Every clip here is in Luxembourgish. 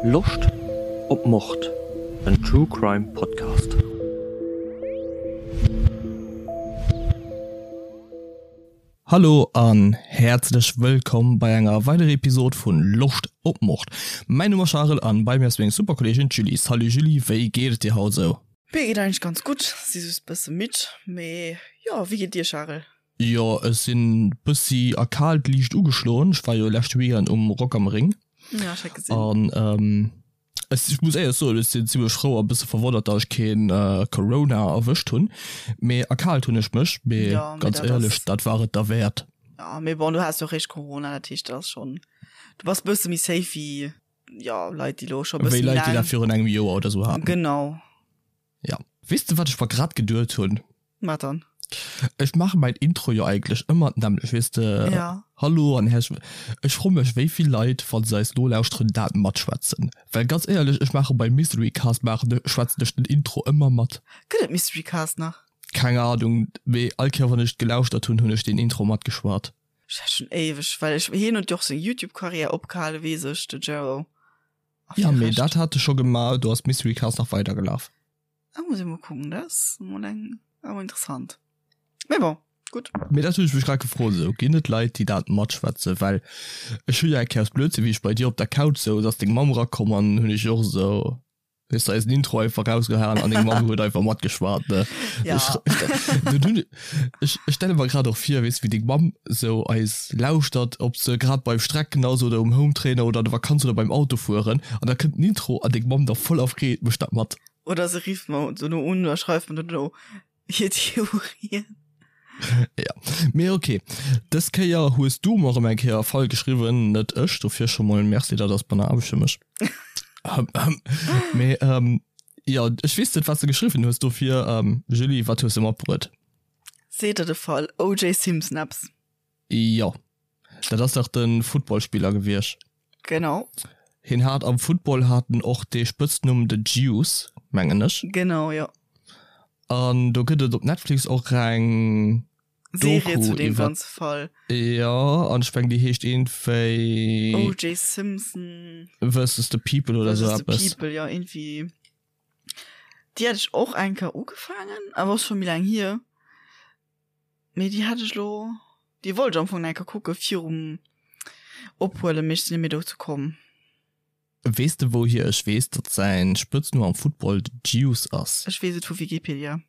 Loscht op Mord? En True Crime Podcast. Hallo an häerzlech wëllkomm bei enger weiderer Episode vun Loscht op Mord. Mäin Numm ass Charel an bei mir ass meng super Kolleegin d'Julie. Salut Julie, wéi geet et dir haut esou? Mir geet eigentlech ganz gutt, si just bësse midd, mee jo, wéi geet dir Charel? Jo ech sinn bëssi erkaalt, liicht ugeschloen. Ech war jo leschte Weekend um Rock am Ring. Ja, ech hat gesinn. An ech muss éierlech soen, ech sinn zimmlech frou a bësse verwonnert, datt ech keen Corona erwëscht hunn. Mee erkaalt hunn ech mech, mee Ja, mee ganz dat éierlech, ass. dat war et derwäert. Ja, mee bon, du has jo réischt Corona, dat heescht, dat ass schonn, du bass bësse méi safe wéi, jo, Leit, déi lo scho Wéi bësse méi Leit, déi dat laang. virun engem Joer oder sou haten. Genau. Ja. Weess de wat ech mer grad geduet hunn? Wat dann? Ech maache mäin Intro jo eigentlech ëmmer d'nämmlecht, weess de, Ja. Hallo an häerzlech wëll. Ech froe mech wéi vill Leit, wa se eis nolauschteren, dat matschwätzen. Well ganz éierlech, ech maache beim Mystery Cast maachen ech, schwätzen ech den Intro ëmmer mat. Gëtt et Mystery Cast nach? Keng Ahnung, mee all Kéier wann ech gelauschtert hunn, hunn ech deen Intro matgeschwat. Ech hat schon éiweg, well ech, hien huet jo och seng Youtube-Karriär opgehale, weess ech, de Jero. A Ja, mee dat hat e scho gemaach, do ass Mystery Cast nach weidergelaf. Da muss ech mol kucken, dat ass mol eng awer interessant. Mee bon, gutt. Mee dat hunn ech mech grad gefrot, esou ginn et Leit déi dat matschwätzen, well ech hu jo eng Kéier aus Blödsinn wéi ech bei dir op der Couch souz ass deng Mamm erakomm an hunn ech och esou weess de eisen Intro einfach rausgehaen an deng Mamm huet einfach matgeschwat ne. Ja. Ech hunn ech ech stelle mer grad och vir weess wéi deng Mamm esou eis lauschtert ob se grad beim Strecken ass oder um Hometrainer oder an der Vakanz oder beim Autofueren an da kënnt den Intro an deng Mamm da voller Freed mécht dat mat. Oder se rifft mer dono un oder schreift mer dono hir Theorien. Ja, mee ok. Dës Kéier hues du mer erëm eng Kéier e Fall geschriwwen, net ech. Dofir scho mol Merci, dat ass banner Aarbecht fir mech. Mee jo, ech weess net, wat s de geschriwwen hues, dofir Julie, wat hues de matbruet? Seet der de Fall OJ Simpson eppes? Jo, dat ass dach de Footballspiller gewiescht. Genau. Hien hat am Football hat en och dee Spëtznumm The Juice, mengen ech. Genau, jo. An do gëtt et op Netflix och eng Serie Doku zu deem iwwer. ganze Fall. Jo, an ech mengen déi heescht iergendwéi. OJ Simpson. Versus the People oder esou Versus the eppes. People, jo, iergendwéi. Déi hat ech och eng Kéier ugefaangen, awer ass scho méi laang hier. Mee déi hat ech lo, déi wollt ech am Fong nach eng Kéier kucke virum Ophuelen, mee ech sinn net méi dozou komm. Weess de wouhier ech weess, datt säin Spëtznumm am Football de Juice ass? Ech weess et vu Wikipedia.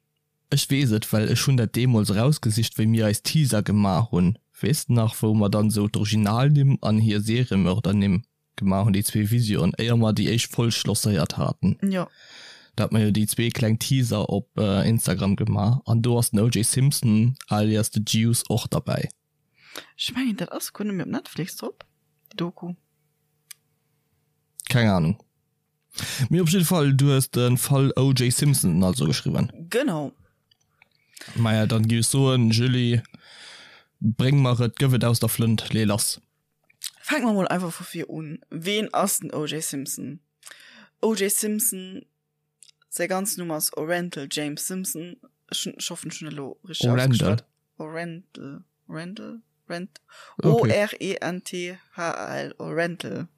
Ech weess et, well ech hunn dat deemools erausgesicht, wéi mir eis Teaser gemaach hunn. Weess de nach, wou mer dann esou d'Originalnimm an hir Seriemördernimm Gemaach hunn déi zwee Visioen, éier mer déi éischt Folg lancéiert haten. Jo. Da hat mer jo déi zwee kleng Teaser op Instagram gemaach an do ass den OJ Simpson alias The Juice och derbäi. Ech mengen dat ass guer net méi op Netflix drop, déi Doku. Keng Ahnung. Mee op jidde Fall, du hues de Fall OJ Simpson also geschriwwen. Genau. Maja, dann géif ech soen, Julie, bréng mer et, gëff et aus der Flënt, lee lass. Fänke mer mol einfach vu vir un. Ween ass den OJ Simpson? OJ Simpson, säi ganzen Numm ass Orenthal James Simpson. Ech hunn, ech hoffen, ech hunn elo richteg Orendal. ausgeschwat. Orenthal, Orenthal, Rent, Okay. O-R-E-N-T-H-A-L, Orenthal,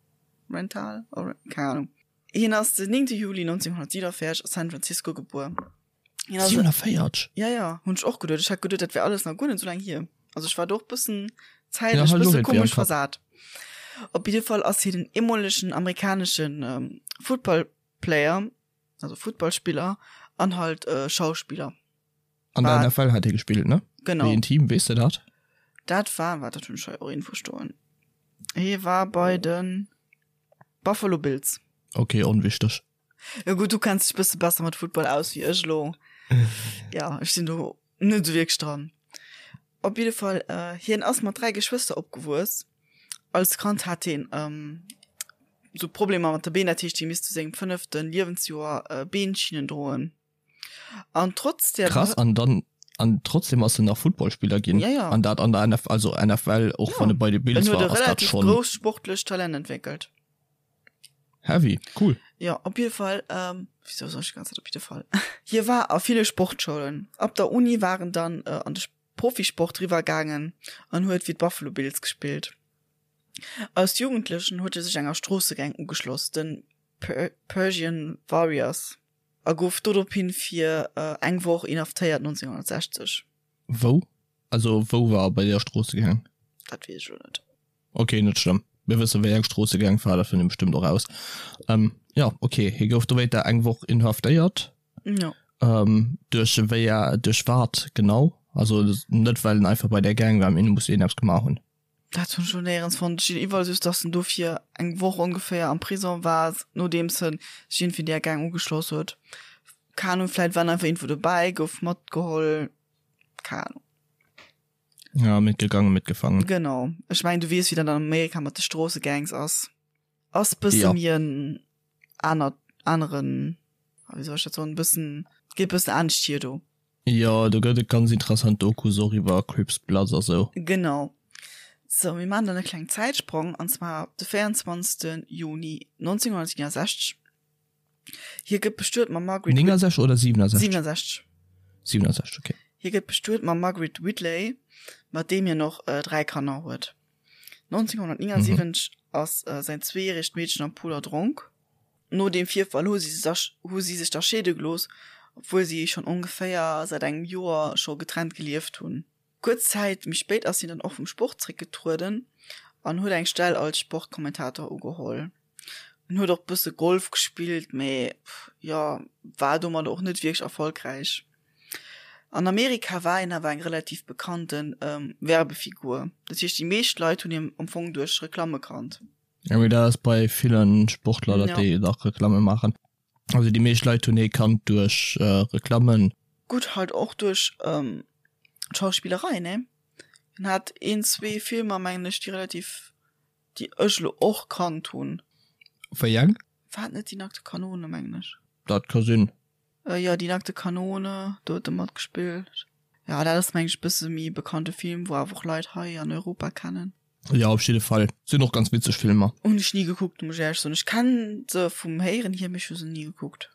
Rental, Ore, keng Ahnung. Hien ass den 9. Juli 1947 a San Francisco gebuer. Hien ass 47? Ja, ja, hunn ech och geduet. Ech hat geduet, dat wär alles nach guer net esou laang hier. Also ech war do och bëssen Ja, zäitlech hat ech och bësse irgendwie am komesch Kapp. versat. Op jidde Fall ass hien en eemolegen amerikaneschen ähm, Footballplayer, also Footballspiller an halt äh, Schauspiller. An der War- NFL hat hie gespillt, ne? Genau. Wéi en Team, weess de dat? Dat war, wat dat hunn ech hei och irgendwou stoen. Hie war bei den Buffalo Bills. Okay, onwichteg. Jo gutt, du kenns dech bësse besser mat Football aus wéi ech elo. Ja, ech sinn do net esou wierklech dran. Op jidde Fall, hien ass mat 3 Geschwëster opgewuess. Als Kand hat hien sou Problemer mat de Been, dat heescht hie misst zu sengem fënnefte Liewensjoer Beenschinnen droen. An trotz der Krass, an dann an trotzdem ass en nach Footballspiller ginn. Ja, ja. An dat an der NF, also NFL, och Ja. wann e bei de Bills En huet war, e ass dat relativ schonn grousst sportlecht Talent entwéckelt. heavy. Cool. Jo, op jidde Fall, ähm, wieso soll ech die ganze Zeit op jidde Fall? Hie war a ville Sportschoulen. Ab der Uni war en dann äh, an de Profisport riwwer gaangen an huet fir d'Buffalo Bills gespillt. Als Jugendlechen huet e sech enger Stroossegang ugeschloss, den. Persian Warriors a gouf dorophin fir eng Woch inhaftéiert 1960. Wou? Also wou war bei der Stroossegang? Dat weess ech elo net. Ok, net schlëmm. Mir wësse wéi eng Stroossegang war, dat fënnt ee bestëmmt och raus. Jo, ok, hie gouf dowéinter eng Woch inhaftéiert. Jo. Duerch wéi, duerch wat genau? Also net well en einfach bei där Gang war, mee en muss iergendeppes gemaach hunn. Dat hunn ech lo néierens fonnt. Ech sinn iwwerall just, dass en dofir eng Woch ongeféier am Prison war, nodeems en sech iergendwéi där Gang ugeschloss huet. Keng Ahnung, vläit war en einfach iergendwou dobäi, gouf matgeholl, keng Ahnung. Ja, mitgegangen, mitgefangen. Genau. Ech mengen, du weess, wéi dat an Amerika mat de Stroossegangs ass. Ass bësse ja. méi en anert, aneren, wéi soll ech dat soen, bëssen, geet bëssen anescht hier do. Jo, do gëtt et ganz interessant Dokus och iwwer Crips, Bloods a sou. Genau. Sou, mir maachen dann e klengen Zäitsprong, an zwar de 24. Juni 1969. Hie gëtt bestuet mam Margaret. 69 oder 67? 67. 67, okay. Hie gëtt bestuet mam Margaret Whitley, mat deem hien och 3 Kanner huet. 1979 ass säin zweejäregt Meedchen am Pool erdronk. No deem Virfall hu si hu si sech da scheede gelooss, obwuel si schonn ongeféier säit engem Joer scho getrennt gelieft hunn. Kuerz Zäit méi spéit ass hien dann och vum Sport zeréckgetrueden an huet eng Stell als Sportkommentator ugeholl. En huet och bësse Golf gespillt, mee jo, war domadder och net wierklech erfolgräich. An Amerika war hien awer eng relativ bekannte Werbefigur, dat heescht déi meescht Leit hunn hien am Fong duerch Reklamme kannt. Jo, mee dat ass bei ville Sportler, datt déi nach Reklamme maachen. Also déi meescht Leit hunn hie kannt duerch Reklammen. Gutt, halt och duerch d'Schauspillerei, ne? Hien hat een, zwee Filmer, mengen ech, déi relativ, déi ech elo och kannt hunn. Wéi eng? War et net Die nackte Kanone, mengen ech? Dat ka sinn. Jo, Die nackte Kanone, do huet e matgespillt. Jo, dat ass mengen ech e bësse méi bekannte Film, wou awer och Leit hei an Europa kennen. Jo, op jidde Fall. Sinn och ganz witzeg Filmer. Hunn ech ni gekuckt, muss ech éierlech soen. Ech kennen se vum Héieren hier, mee ech hu se ni gekuckt.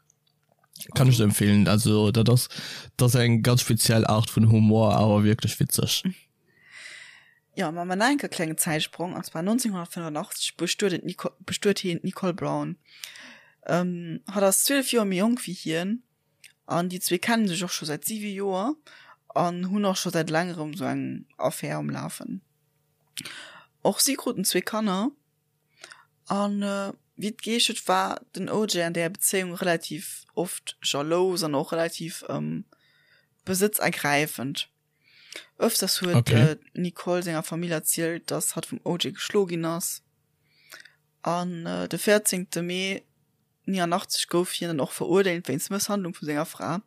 Kann ech der empfehlen. Also dat ass, dat ass eng ganz speziell Art vun Humor, awer wierklech witzeg. Jo, ma mer enke klengen Zäitsprong, an zwar 1985 bestuet en d'Nico, bestuet hien d'Nicole Brown. Hatt ass 12 Joer méi jonk wéi hien an déi zwee kennen sech och scho säit 7 Joer an hunn och scho säit längerem sou eng Affär um Lafen. Och si kruten zwee Kanner an wéi et geheescht huet, war den OJ an där Bezéiung relativ oft jalous an och relativ besëtzergräifend. Ëfters huet okay. d'Nicole senger Famill erzielt, dass hatt vum OJ geschlo ginn ass. An äh, de 14. Mee 89 gouf hien dann och verurdeelt wéinst Mësshandlung vu senger Fra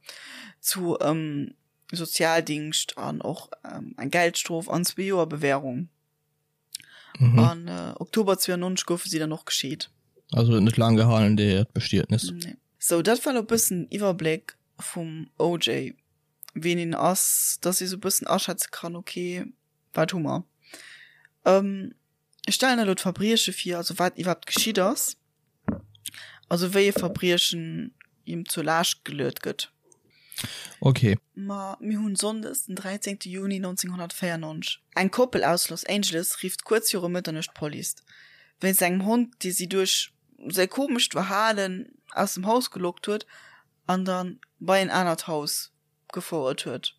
zu ähm, Sozialdingscht an och ähm, eng Geldstrof an zwee Joer Bewährung. Mhm. An äh, Oktober 92 goufe si dann och gescheet. Also huet net laang gehalen déi Bestietnis. Nee. So dat war lo bëssen Iwwerbléck vum OJ. ween een ass, dass ee sou bëssen aschätze kann, okay, wat hu mer. Ech stellen elo d'Verbrieche vir, also wat iwwerhaapt geschitt ass, also wéi e Verbriechen him zur Laascht geluet gëtt. Okay. Ma mir hunn Sonndes den 13 Juni 1994. Eng Koppel aus Los Angeles rifft kuerz viru Mëtternuecht d'Police, wéinst engem Hond, dee si duerch säi komescht Verhalen aus dem Haus gelockt huet an dann bei en anert Haus gefouert huet.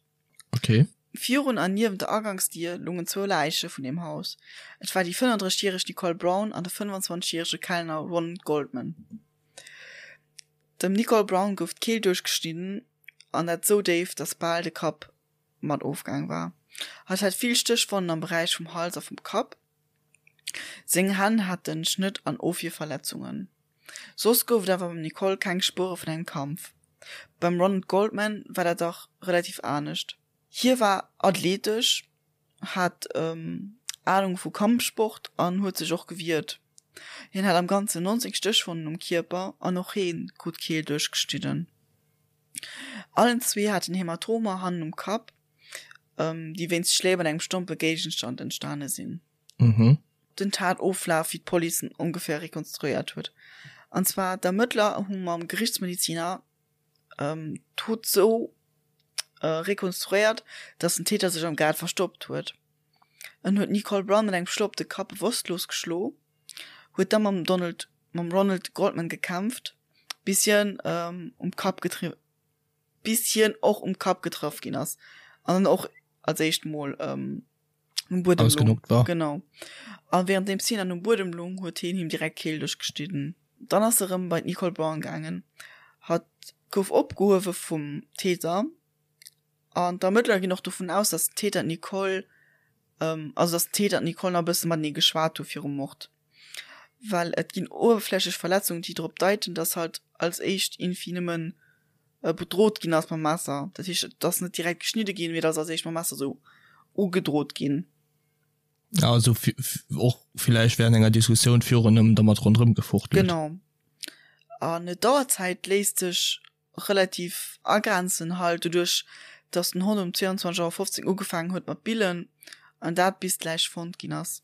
Okay. Virun an niewent der Agangsdier lungen zwou Läiche vun deem Haus. Et war déi 35 järeg Nicole Brown an de 25 järege Kellner Ron Goldman. Dem Nicole Brown gouf d'Keel duerchgeschnidden an dat sou déif, dass bal de Kapp mat ofgaang war. Hatt hat vill Stéchwonnen am Beräich vum Hals a vum Kapp. Seng Hänn haten Schnëtt an Ofwierverletzungen. Soss gouf et awer beim Nicole keng Spuere vun engem Kampf. Beim Ronald Goldman war dat dach relativ anescht. Hie war athletesch, hat Anung vu Kampfsport an huet sech och gewiert. Hien hat am Ganzen 19 Stéchwonnen um Kierper an och hee krut d'Keel duerchgeschnidden. Allen zwee haten Hämatomer hannen um Kapp, déi wéinst Schléi mat engem stompe Géigenstand entstane sinn. Mhm. Den Tatoflaf, wéi d'Police en ongeféier rekonstruéiert huet. An zwar, d'Ermëttler hu mam Gerichtsmediziner d'Dot sou rekonstruéiert, datt den Täter sech am Gaart verstoppt huet. En huet d'Nicole Brown mat engem Schlo op de Kapp bewosstlos geschlo, huet da mam Donald. mam Ronald Goldman gekämpft, bis hien um Kapp getri bis hien och um Kapp getraff ginn ass an dann och als éischt mol um Buedem lung. War. Genau. A währenddeems hien dann um Buedem lung, huet hien him direkt d'Kehl duerchgeschnidden. Dann ass e rëm bei d'Nicole Brown gaangen. Hatt gouf opgehuewe vum Täter an d'Ermëttler ginn och dovun aus, dass den Täter d'Nicole, also dass den Täter an d'Nicole nach e bësse matenee geschwat hu virum Mord. Well et ginn uewerflächlech Verletzungen, déi drop deiten, dass halt als éischt iergendwéi nëmmen bedrot ginn ass mam Messer. Dat heescht, et ass net direkt geschnidde ginn, mee et ass als éischt mam Messer esou ugedrot ginn. Ja, also och villäicht während enger Diskussioun virun ëm dermat ronderëm gefuchtelt. Genau. An d'Auerzäit léisst sech relativ agrenzen halt doduerch, dass den Hond um 22 Auer 15 ugefaangen huet mat billen an dat bis d'Läich fonnt ginn ass.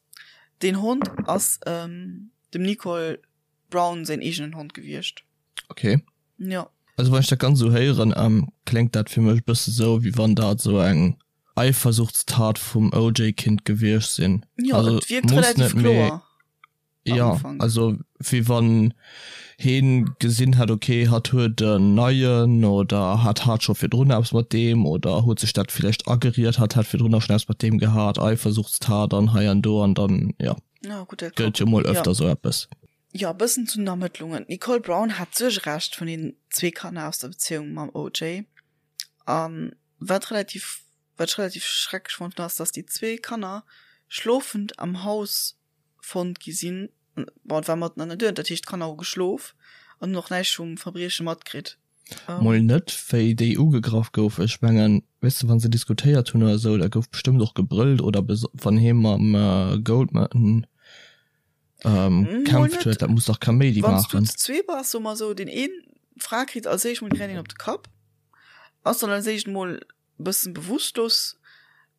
Deen Hond ass dem Nicole Brown säin eegenen Hond gewiescht. Okay. Jo. Also wann ech dat Ganzt esou héieren, kléngt dat fir mech e bësse sou, wéi wann dat esou eng Eifersuchtstat vum OJ kinnt gewiescht sinn. Jo, Also et wierkt muss relativ net, mee kloer am jo, Ufank. also wéi wann heen gesinn hätt, okay, hatt huet en neien oder hatt hat scho virdrun eppes mat deem oder huet sech dat villäicht ageriet, hatt hätt virdrun och schonn eppes mat deem gehat, Eifersuchtstat an hei an do an dann, jo, Ja, gutt, dat gëtt ka, jo mol jo. öfter sou eppes. Jo, e bëssen zu den Ermëttlungen. D'Nicole Brown hat d'Suergerecht vun den zwee Kanner aus der Bezéiung mam OJ. A wat relativ, wat ech relativ schrecklech fonnt hunn, ass, dass déi zwee Kanner schlofend am Haus fonnt gi sinn. Bon, et war matten an der Nuet, dat heescht, d'Kanner hu geschlof an hunn och näischt vum Verbrieche matkritt. Mol net, wéi déi ugegraff gouf. Ech mengen, weess de, wa se diskutéiert hunn oder esou, da gouf bestëmmt och gebrëllt oder wann hie mam Goldman kämpft huet, dat muss dach Kaméidi maachen. Wann s du zu zwee bass, soe mer esou, deen een, d'Fra kritt als éischt mol direkt een op de Kapp, ass dann als éischt mol e bëssen bewusstlos,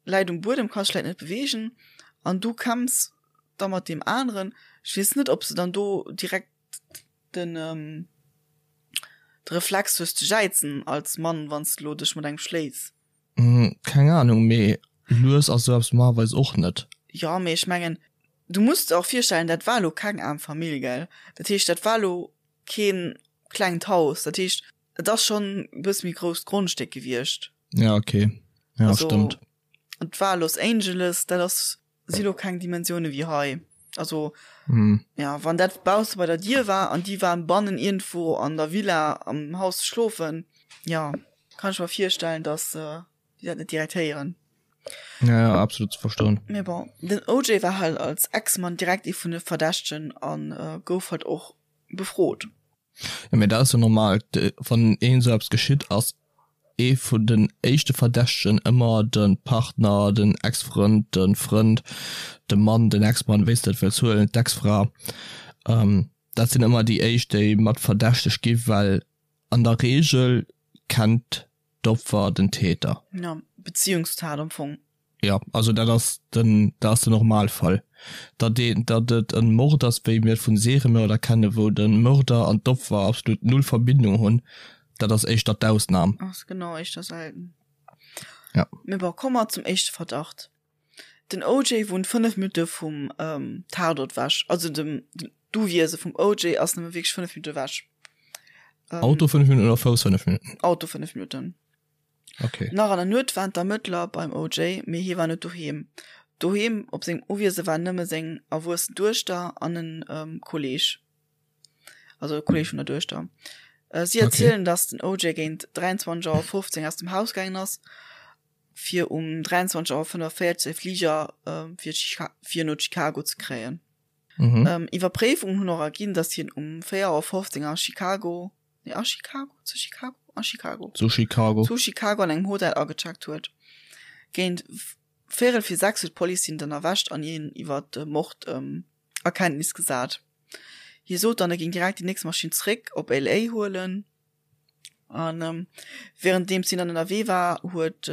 läit um Buedem, ka sech vläit net beweegen an du kämpfs da mat deem aneren. Ech weess net, ob s de dann do direkt den de Reflex hues ze jäizen als Mann, wann s de lo dech mat engem schléis. Keng Ahnung, mee lues ass esou eppes normalerweis och net. Jo, mee ech mengen, du muss der och virstellen, dat war lo keng aarm Famill, gell? Dat heescht, dat war lo keen klengt Haus, dat heescht, et ass schonn e bësse méi grousst Grondstéck gewiescht. Ja, okay, ja, stëmmt. Et war Los Angeles, dat ass si lo keng Dimensioune wéi hei. Also mm. ja, wann dat bausse bei der Dier war an déi waren bannen iergendwou an der Villa am Haus schlofen, ja, kann ech mer virstellen, dass äh, déi dat net direkt héieren. Ja, ja, absolut ze verstoen. Mee bon, den OJ war halt als Ex-Mann direkt ee vun de Verdächtegen an äh, gouf halt och befrot. Jo, mee dat ass jo normal, wann een esou eppes geschitt, ass ee vun den éischte Verdächtegen ëmmer de Partner, den Ex-Frënd, de Frënd, de Mann, den Ex-Mann, wéi s de et wëlls huelen, d'Ex-Fra. Dat sinn ëmmer déi éischt, déi mat verdächtegt gi well an der Reegel kennt d'Opfer den Täter. Jo, Beziehungstat am Fong. Jo, also dat ass den, dat ass den Normalfall. Datt een, datt et e Mord ass, wéi mir et vun Seriemörder kennen, wou de Mörder an d'Opfer absolut null Verbindung hunn, dat ass éischter d'Ausnam. Ass genau éischter selten. Ja. Mee bon, komme mer zum éischte Verdacht. Den OJ wunnt 5 Minutte vum Tatort ewech. Also dem, d'Uwiese vum OJ ass nëmme wierklech 5 Minutte ewech. Auto 5 Minutten oder Fouss 5 Minutten? Auto 5 Minutten. Okay. Nach an der Nuet waren d'Ermëttler beim OJ, mee hie war net doheem. Doheem op sengem Uwiese waren nëmme seng erwuessen Duechter an en Kolleeg, also e Kolleeg vun der Duechter. Si erzielen, datt den OJ géint 23 Auer 15 aus dem Haus gaangen ass, fir um 23 Auer 45 säi Fliger fir fir no Chicago ze kréien. Iwwerpréifungen hunn och erginn, datt hien um 4 Auer 15 a Chicago Nee, a Chicago, zu Chicago, a Chicago. Zu Chicago. Zu Chicago an engem Hotel agecheckt huet. Géint véierel fir 6 huet d'Police hien dann erwächt an hien iwwer de Mord a Kenntnis gesat. Hie sot dann, e géing direkt déi nächst Maschinn zeréck op LA huelen. An wärenddeems hien dann ënnerwee war, huet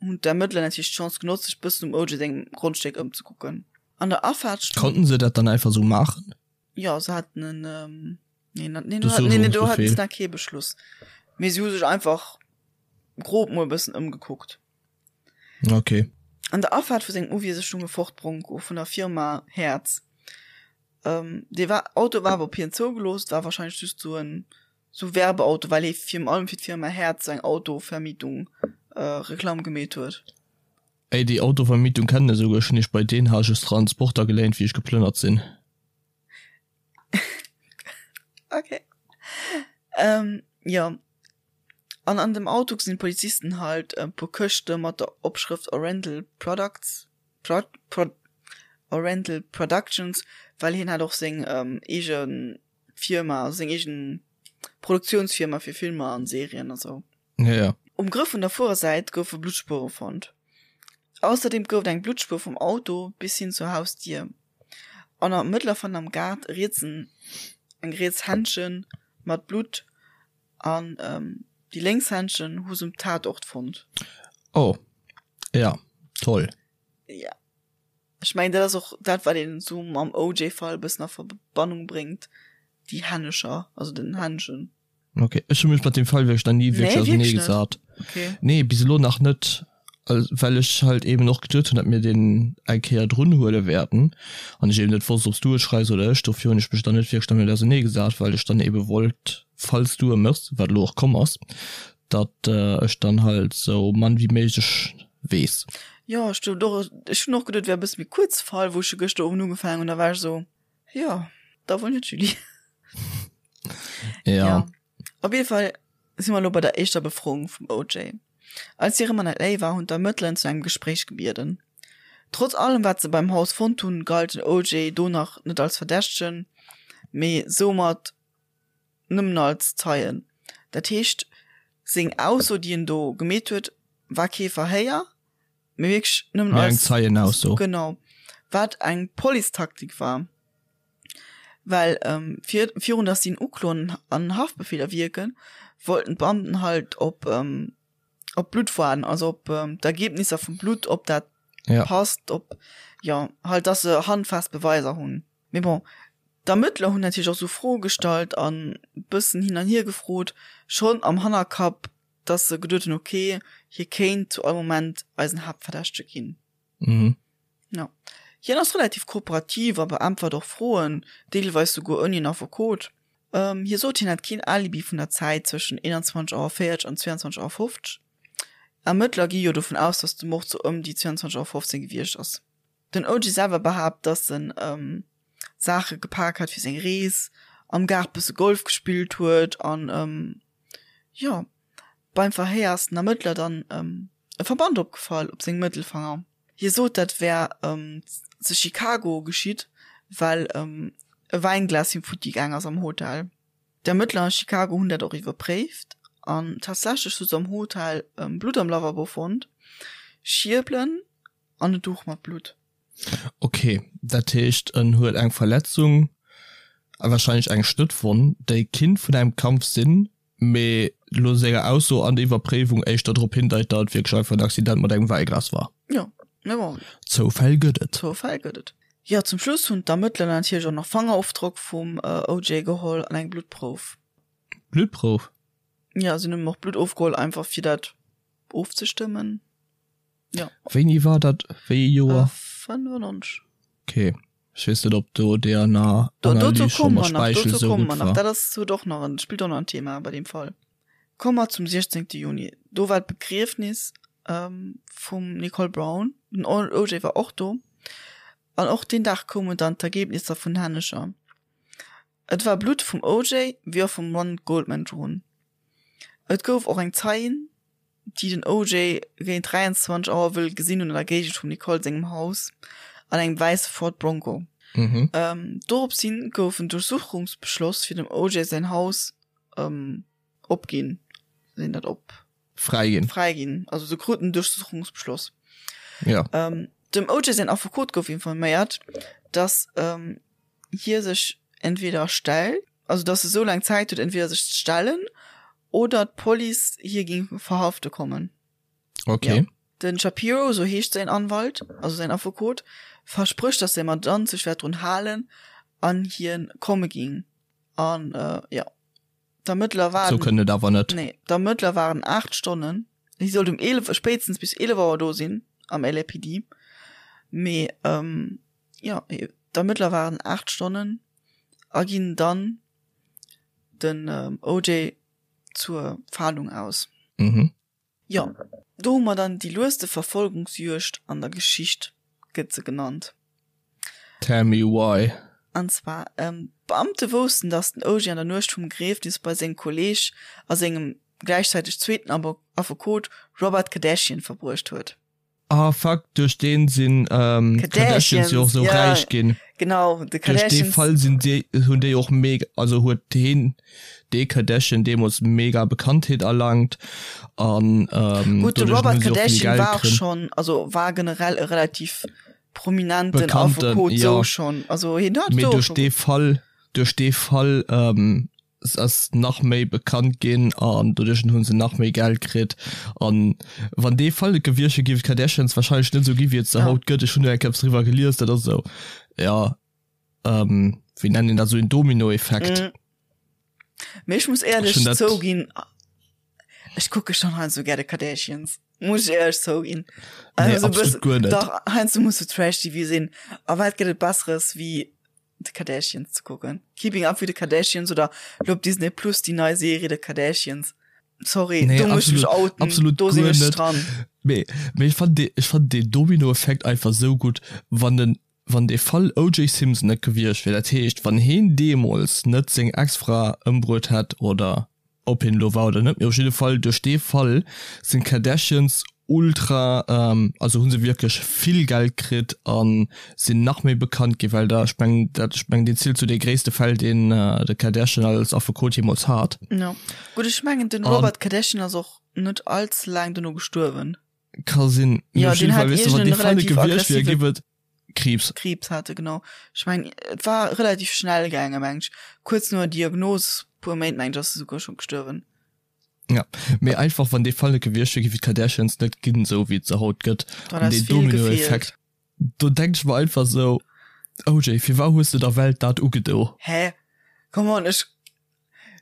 hunn d'Ermëttler natierlech d'Chance genotzt, sech bëssen um OJ sengem Grondstéck ëmzekucken. An der Afaart stoung. Konnten se dat dann einfach sou maachen? Jo, se haten en. Nee, na, nee, do, nee, nee, do hatten se nach kee Beschluss. Mee si hu sech einfach grob mol e bëssen ëmgekuckt. Okay. An der Afaart vu sengem Uwiese stung e Ford Bronco vun der Firma Hertz. Dee war Auto war awer op hien zougelooss, et war wahrscheinlech just sou en sou Werbeauto, well hie virun allem fir d'Firma Hertz eng Autovermietung Reklamm gemeet huet. Ey, déi Autovermietung kennen ech esouguer, ech hunn iech bei deen hat ech Transporter geléint wéi ech geplënnert sinn. Okay. Ähm, jo. An an dem Auto gesinn d'Polizisten halt e puer Këschte mat der Opschrëft Oriental Products, Pro, Pro, Oriental Productions, well hien hat och seng eege Firma, also seng eegen Produktiounsfirma fir Filmer an Serien a sou. Ja, ja. Um Grëff vun der Fuerersäit goufe Bluttspuere fonnt. Ausserdeem gouf et eng Bluttspuer vum Auto bis hin zur Hausdier. An am Mëttler fand am Gaart e rietsen, eng riets Händchen mat Blutt an déi lénks Händchen hu se um Tatort fonnt. Oh, ja, toll. Ja. Ech mengen, dat ass och dat, wat een esou mam OJ-Fall e bëssen a Verbannung bréngt, déi Hännecher, also den Händchen. Ok, ech hu mech mat dem Fall wierklech nach ni wierklech Nee, ausernee wierklech net? gesat. Okay. Nee, bis elo nach net, well ech halt eben och geduet hunn, datt mir deen eng Kéier drun huele wäerten an ech eben net wosst, ob s du e schreifs oder ech. Dofir hunn ech mech dann net wierklech dermat ausernee gesat, well ech dann ebe wollt, falls du e méchs, wat elo och komm ass, datt ech dann halt sou mann wéi méiglech weess. Jo, ech duet och, ech hunn och geduet, et wär e bësse méi kuerz Fall, wou ech e gëschter Owend ugefaangen hunn, da war ech esou, jo, da wuel net, Julie. Ja. ja. Op jeden Fall si mer elo bei der éischter Befroung vum OJ. Als hie rëm an LA war, hunn d'Ermëttler en zu engem Gespréich gebieden. Trotz allem wat se beim Haus fonnt hunn, galt den OJ do nach net als Verdächtegen, mee soumat nëmmen als Zeien. Dat heescht, seng Ausso, déi en do gemeet huet, war kee Verhéier, mee wierklech nëmmen Mee eng als Zeienausso. Genau. Wat eng Policetaktik war. Well fir virun dass si en ukloen an en Haftbefehl erwierken, wollten d'Beamten halt op op d'Blutt waarden, also op d'Ergebnisser vum Blutt, ob dat Ja. passt, ob jo halt dass se handfest Beweiser hunn. Mee bon, d'Ermëttler hunn natierlech och sou Froe gestallt an bëssen hin an hier gefrot, schonn am Hannerkapp, dass se geduet hunn, ok, hie kéint zu all Moment eisen Haaptverdächtege ginn. Mhm. Ja. Hien ass relativ kooperativ a beäntwert och Froen, deelweis souguer ouni en Affekot. Hie sot, hien hätt keen Alibi vun der Zäit zwëschen 21 Auer 40 an 22 Auer 50. Ermëttler gi jo dovun aus, datt de Mord sou ëm déi 22 Auer 15 gewiescht ass. Den OJ selwer behaapt, datt en Saache gepak hat fir seng Rees, am Gaart bësse Golf gespillt huet an, jo, beim Verhéier ass den Ermëttler dann e Verband opgefall op sengem Mëttelfanger. Hie sot, dat wär ze Chicago geschitt, well e Wäinglas him futti gaang ass am Hotel. D'Ermëttler a Chicago hunn dat och iwwerpréift an tatsächlech hu se am Hotel Blutt am Lavabo fonnt, Schierbelen an e Duch mat Blutt. Ok, dat heescht en huet eng Verletzung a warscheinlech eng Schnëttwonn, déi kinnt vun engem Kampf sinn, mee lo senger Ausso an der Iwwerpréiwung éischter drop hindeit, datt et wierklech einfach en Accident mat engem Wäiglas war. Jo, mee bon. Zoufäll gëtt et. Zoufäll gëtt et. Jo, zum Schluss hunn d'Ermëttler natierlech och nach Fangerofdrock vum OJ geholl an eng Bluttprouf. Bluttprouf? Jo, si hunn him och Blutt ofgeholl, einfach fir dat ofzestëmmen. Ja. Wéini war dat? Wéi ee Joer? 95. Okay. Ech weess net ob do DNA Do, dozou Analys scho komme mat mer nach, Speichel dozou sou komme gutt mer nach. war. Dat ass, huet och nach en, spillt och nach en Thema bei deem Fall. Komme mer zum 16. Juni. Do war d'Begriefnis ähm, vum Nicole Brown. Den OJ war och do. An och deen Dag koumen dann d'Ergebnisser vun Hännecher. Et war Blutt vum OJ wéi och vum Ron Goldman drun. Et gouf och eng Zeien, déi den OJ géint 23 Auer wëll gesinn hunn an der Géigend vum Nicole sengem Haus an engem wäisse Ford Bronco. Mhm. Ähm, dorops hin gouf en Duerchsuchungsbeschloss fir dem OJ säin Haus ähm, opginn. Sinn dat op? Fräiginn. Fräiginn. Also se kruten en Duerchsuchungsbeschloss. Ja. Ähm, dem OJ säin Affekot gouf informéiert, dass ähm, hie sech entweder stellt, also dass e sou laang Zäit huet, entweder sech ze stellen oder d'Police hie géing verhafte kommen. Okay. Ja. Den Shapiro, sou heescht säin Anwalt, also säin Affekot, versprécht, dass säi Mandant sech wäert drun halen an hien komme géing. An äh, ja, d'Ermëttler Sou waren. kënnt et awer net. Nee, d'Ermëttler waren 8 Stonnen. Hie sollt um 11, spéitstens bis 11 Auer do sinn am LAPD. Mee ähm, ja, d'Ermëttler waren 8 Stonnen. a ginn dann den OJ zur Fahndung aus. Mhm. Jo, do hu mer dann déi lueste Verfolgungsjuegd an der Geschicht, gëtt se genannt. Tell me why. An zwar, d'Beamte woussten, datt den OJ an der Nuecht vum Begriefnis bei sengem Kolleeg a sengem gläichzäiteg zweeten Affekot Robert Kardashian verbruecht huet. Ah fuck, duerch deen sinn d'Kardashians jo och sou räich ginn. Genau, de Kardashians. Duerch dee Fall sinn déi, hunn déi och mega, also huet heen, dee Kardashian deemools mega Bekanntheet erlangt an Gutt, de Robert Kardashian war och schonn, also war generell e relativ prominenten Affekot sou schonn, also hien hat do och scho. Mee duerch dee Fall, duerch dee Fall ass nach méi bekannt ginn an doduerch hunn se nach méi Geld kritt an wann dee Fall net gewiescht wier, géif d'Kardashians wahrscheinlech net esou gi wéi et se haut gëtt. Ech hunn do eng Kéier eppes driwwer gelies, dat ass esou, jo, wéi nennt een dat, esou een Dominoeffekt. Mee ech muss éierlech zouginn, ech kucke schonn heiansdo gär de Kardashians, muss ech éierlech zouginn. Nee, absolut guer net. Dach, heiansdo muss de Trash-TV sinn a wat gëtt et Besseres wéi The Kardashians ze kucken. Keeping Up with the Kardashians oder lo op Disney Plus déi nei Serie The Kardashians. Sorry, nee, do muss ich mech outen. Absolut do sinn ech dran. Mee, mee ech fand dee, ech fand dee Domino-Effekt einfach sou gutt, wann den, wann dee Fall OJ Simpson net gewiescht wier, dat heescht wann heen deemools net seng Ex-Fra ëmbruet hätt oder Ob hien elo war oder net, mee op jidde Fall duerch dee Fall sinn d'Kardashians ultra, also hu se wierklech vill Geld kritt a sinn nach méi bekannt ginn, well da, ech mengen dat, ech mengen deen zielt zu de gréisste Fäll deen de Kardashian als Affekot jeemools hat. Jo, gutt, ech mengen den Robert Kardashian ass och net all ze laang dono gestuerwen. Ka sinn, mee op jidde Fall, weess de, wann dee Fall net gewiescht wier, géif et. Kriibs. Kriibs hat e, genau. Ech mengen, et war relativ schnell gaange, meng ech. Kuerz no der Diagnos, puer Méint, meng ech, ass e souguer scho gestuerwen. Ja, mee einfach, wann dee Fall net gewiescht wier, géif et d'Kardashians net ginn, esou wéi et se haut gëtt. Dann An ass deen vill gefeelt. Dominoeffekt, do denk ech mer einfach esou, OJ, firwat hues de der Welt dat ugedo? Hä? Come on, ech,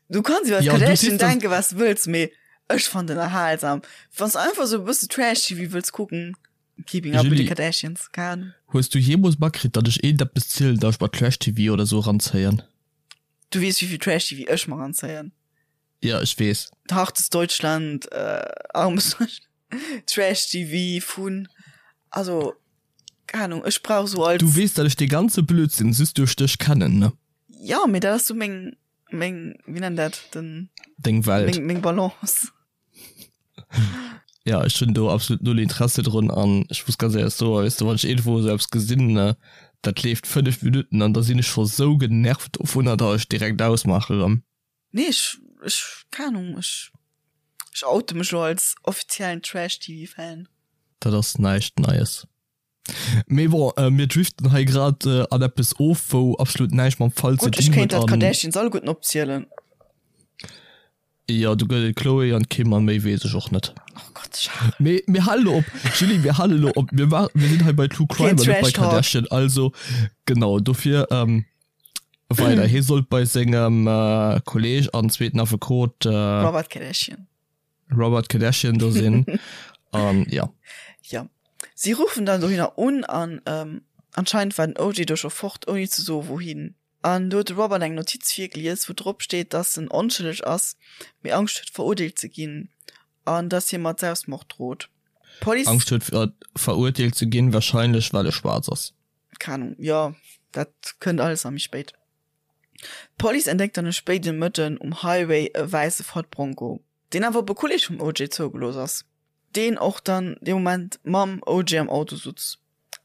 du kanns iwwer Ja, du d'Kardashian sees, dass. denken, wat s de wëlls, mee ech fannen den erhalsam. Wann s de einfach esou e bësse Trash-TV wëlls kucken, Keeping Up with the Julie, Kardashians, keine Ahnung. hues du jeemools matkritt, datt ech iergendeppes zielen, datt ech mer Trash-TV oder sou eranzéien? Du weess, wéi vill Trash-TV ech mer eranzéien. Ja, ech weess. Hartes Deutschland, äh, armes Deutschland, Trash-TV vun, also, keine Ahnung, ech brauch sou als. Du weess, datt ech dee ganze Blödsinn just duerch dech kennen, ne? Ja, mee dat ass sou meng, meng, wéi nennt dat, den. Deng Welt. Meng, meng Balance. Ja, ech hunn do absolut null Interesse drun an ech muss ganz éierlech soen, weess de, wann ech iergendwou esou eppes gesinn, ne, dat leeft 5 Minutten an da sinn ech scho sou genervt dovunner, datt ech direkt ausmaache rëm. Nee, ech, ech, keng Ahnung, ech, ech oute mech lo als offiziellen Trash-TV-Fan. Dat ass näischt Neies. Mee bon, mir driften hei grad an eppes of, wou absolut näischt mam Fall ze Gutt, ech dinn kéint huet der an. d'Kardashians alleguerten opzielen. Jo, do gëtt et d'Khloé an d'Kim an méi weess ech och net. Oh Gott, Charel. Mee mir halen elo op, Julie, mir halen elo op. Mir maachen, mir sinn hei bei True Crime Keen an net bei Trash Talk. Kardashian, also genau, dofir weider. Hie sollt bei sengem Kolleg an zweeten Affekot. Robert Kardashian. Robert Kardashian do sinn an ja. Ja. Si ruffen dann dohinner un an ähm, anscheinend war den OJ do scho fort, ouni ze soe wouhin. An do huet de Robert eng Notiz virgelies, wou drop steet, dass en onschëlleg ass, mee Angscht huet verurteelt ze ginn an dass hie mat Selbstmord drot. D'Police. Angscht huet verurteelt ze ginn, wahrscheinlech well e schwaarz ass. Keng Ahnung, jo, dat kënnt alles nach méi spéit. D'Police entdeckt dann e spéiden Mëtten um Highway e wäisse Ford Bronco, deen awer op e Kolleeg vum OJ zougelooss ass, deen och dann dee Moment mam OJ am Auto sutz.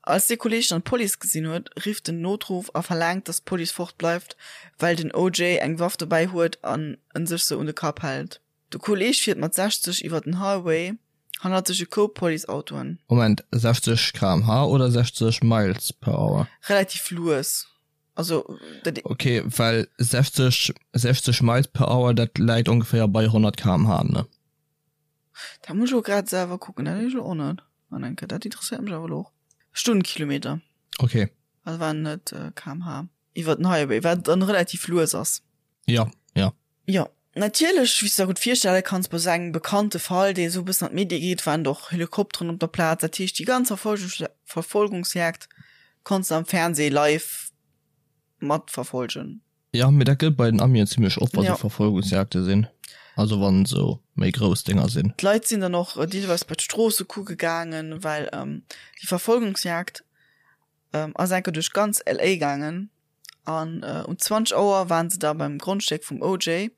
Als dee Kolleeg dann d'Police gesinn huet, rifft en Notruff a verlaangt, dass d'Police fort bleift, well den OJ eng Waff dobäi huet an en sech se un de Kapp hält. De Kolleeg fiert mat 60 iwwer den Highway, hannert sech e Koup Policeautoen. Moment, 60 km/h oder 60 Miles per hour? Relativ lues. Also, dat. Ok, well 60, 60 Miles per hour, dat läit ongeféier bei 100 km/h, ne? Dat muss ech elo grad selwer kucken, dat weess ech elo och net. An enke, dat interesséiert mech awer elo och. Stundenkilometer. Ok. Also waren net km/h. Iwwer den Highway, wat dann relativ lues ass. Ja, ja. Jo, natierlech, wéi s de der gutt virstelle kanns, bei esou engem bekannte Fall, dee esou e bëssen an d'Medie geet, waren och Helikopteren op der Plaz. Dat heescht, déi ganz Verfolgungsjagd konns de am Fernsee live matverfolgen. Ja, mee dat gëtt bei den Amien zimlech oft, wa sou Verfolgungsjagde sinn, also wann sou méi grouss Dénger sinn. D'Leit sinn dann och deelweis bei d'Stroosse kucke gaangen, well déi Verfolgungsjagd ass enke duerch ganz LA gaangen an um 20 Auer waren se da beim Grondstéck vum OJ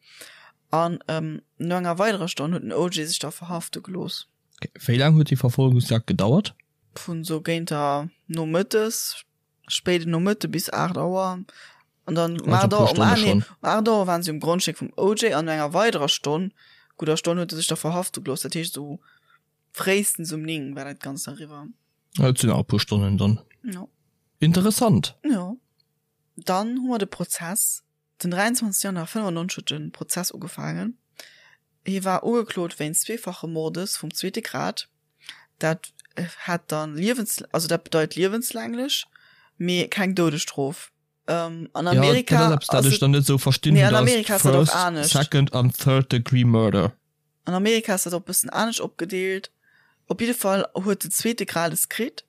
an no enger weiderer Stonn huet den OJ sech da verhafte gelooss. Wéi laang huet déi Verfolgungsjagd gedauert? Vun sou géint der Nomëttes spéiden Nomëtte bis 8 Auer. An dann um 8 Auer, um, ah, nee, um 8 Auer waren si um Grondstéck vum OJ an no enger weiderer Stonn, gudder Stonn, huet e sech da verhafte gelooss. Dat heescht esou fréistens um 9 war dat Ganzt eriwwer. Dat sinn awer e puer Stonnen dann. Jo. Interessant. Jo. Dann hu mer de Prozess. Den 23 Januar 95 huet de Prozess ugefaangen. Hie war ugeklot wéinst zweefache Mordes vum zweete Grad. Dat hätt dann liewens, also dat bedeit liewenslänglech, mee keng Doudesstrof. An Amerika ja, dat ass eppes, dat ech dann net esou verstinn hunn, dass First, Second an Third Degree Murder. An Amerika ass dat och e bëssen anescht opgedeelt. Op jidde Fall huet den zweete Grad es kritt,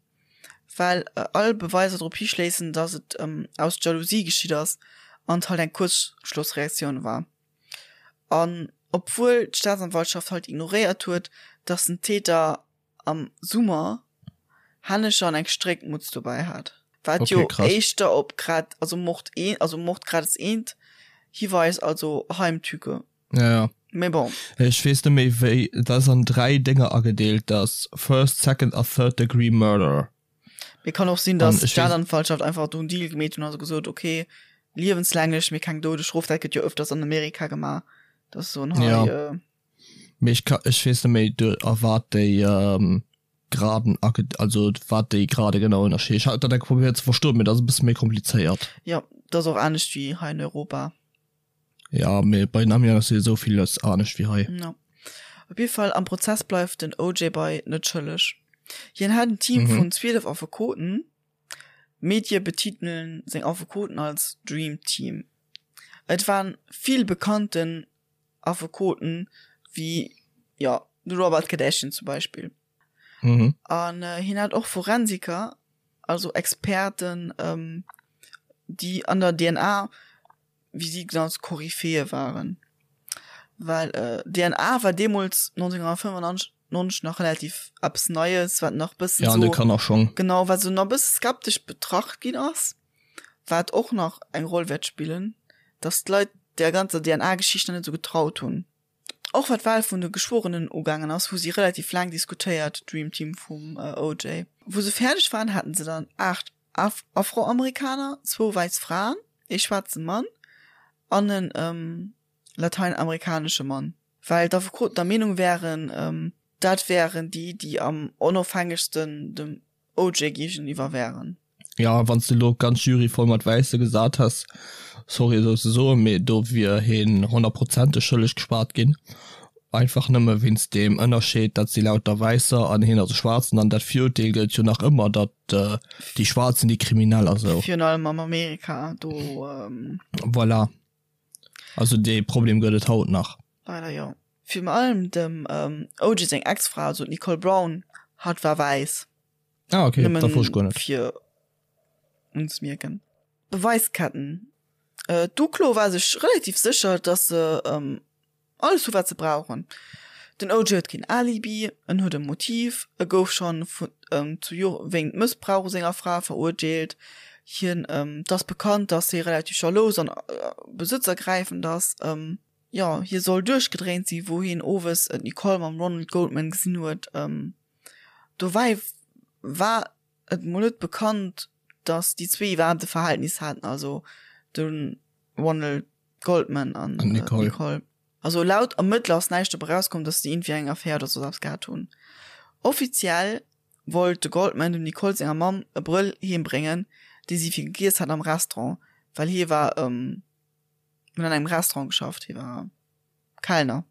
well all Beweiser drop hischléissen, datt et aus Jalousie geschitt ass an et halt eng Kuerzschlossreaktioun war. An obwuel d'Staatsanwaltschaft halt ignoréiert huet, datt den Täter am Summer Hännecher an eng Stréckmutz dobäi hat, wat jo éischter op Grad, also Mord een, also Mordgrades eent hiweist, also Heimtücke. Ja, ja. Mee bon. Ech weess net méi wéi, dat ass an 3 Dénger agedeelt, dat ass First, Second a Third Degree Murder. Mee kann och sinn, dass d'Staatsanwaltschaft einfach do en Deal gemeet hunn a gesot, ok, liewenslänglech, mee keng Doudesstrof. Dat gëtt jo ëfters an Amerika gemaach, dass se soen, hei. Ja. Mee ech ka, ech weess net méi do a wat déi Graden age, also wat déi Grade genau ënnerscheeden. Ech hat dat eng Kéier probéiert ze verstoen, mee dat ass e bësse méi komplizéiert. Jo, dat ass och anescht wéi hei in Europa. Ja, mee bei den Amien ass jo esou villes anescht wéi hei. No. Op jidde Fall, am Prozess bleift den OJ bei net schëlleg. Hien hat en Team vun 12 Affekoten. D'Medie betitelen seng Affekoten als Dream Team. Et waren vill bekannten Affekoten, wéi, jo, de Robert Kardashian zum Beispill. An hien hat och Forensiker, also Experten, déi an der DNA wéi si ganz Koryphäe waren, well DNA war deemools 1995 nach relativ eppes Neies, wat nach bëssen ja, an de Kannerschong. Genau, wat sou nach bësse skeptesch betracht ginn ass, wat och nach eng Roll wäert spillen, datt d'Leit där ganzer DNA-Geschicht nach net sou getraut hunn. Och wat d'Wahl vun de Geschworenen ugaangen ass, hu si relativ laang diskutéiert, d'Dream Team vum OJ. Wou se fäerdeg waren, haten se dann 8 Afroamerikaner, zwou wäiss Fraen, ee schwaarze Mann an en lateinamerikanesche Mann, well d'Affekoten der Meenung wären, dat wären déi, déi am onofhängegsten dem OJ géigeniwwer wären. Jo, wann s de elo d'ganz Jury voll mat Wäisse gesat häss, sorry esou ze soen, mee do wier heen honnertprozenteg schëlleg gespaart ginn, einfach nëmme wéinst deem Ënnerscheed, dat si lauter Wäisser an heen ass e Schwaarzen an dat Virurteel gëllt jo nach ëmmer, datt déi Schwaarz sinn déi Kriminell a sou. Virun allem am Amerika, do. Voilà, also dee Problem gëtt et haut nach. Leider jo. Virun allem dem OJ seng Ex-Fra, also d'Nicole Brown, hatt war wäiss. Ah okay, dat wosst ech guer net. Nëmmen fir unzemierken. Beweisketten. D'Uklo war sech relativ sécher, dass se alles hu wat se brauchen. Den OJ huet keen Alibi, en huet e Motiv, e gouf schonn zu Jore wéint Mëssbrauch u senger Fra verurteelt, hien, et ass bekannt, datt hie relativ jalous an besëtzergräifend ass. Jo, hie soll duerchgedréint sinn, wou hien owes d'Nicole mam Ronald Goldman gesinn huet. Dobäi war et mol net bekannt, datt déi zwee iwwerhaapt e Verhältnis haten, also de Ronald Goldman an Nicole. Nicole. Also laut Ermëttler ass näischt dobäi rauskomm, dass déi iergendwéi eng Affär oder soss eppes gehat hunn. Offiziell wollt de Goldman dem Nicole senger Mamm e Brëll heem bréngen, dee si fir gegiess hat am Restaurant, well hie war, huet an engem Restaurant geschafft, hie war Kellner.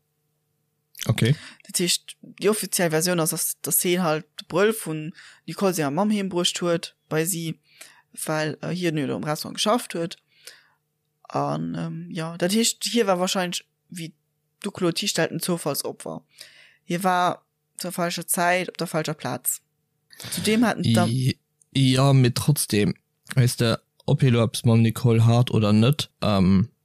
Okay. Dat heescht, déi offiziell Versioun ass, dass, dass hien halt de Brëll vun Nicole senger Mamm heem bruecht huet bei si, well hien jo do am Restaurant geschafft huet. An jo, dat heescht, hie war wahrscheinlech, wéi d'Uklo et histellt, en Zoufallsopfer. Hie war zur falscher Zäit op der falscher Plaz. Zudeem haten d'Erm. Jo, mee trotzdem, weess de, Ob hie lo eppes mam Nicole hat oder net.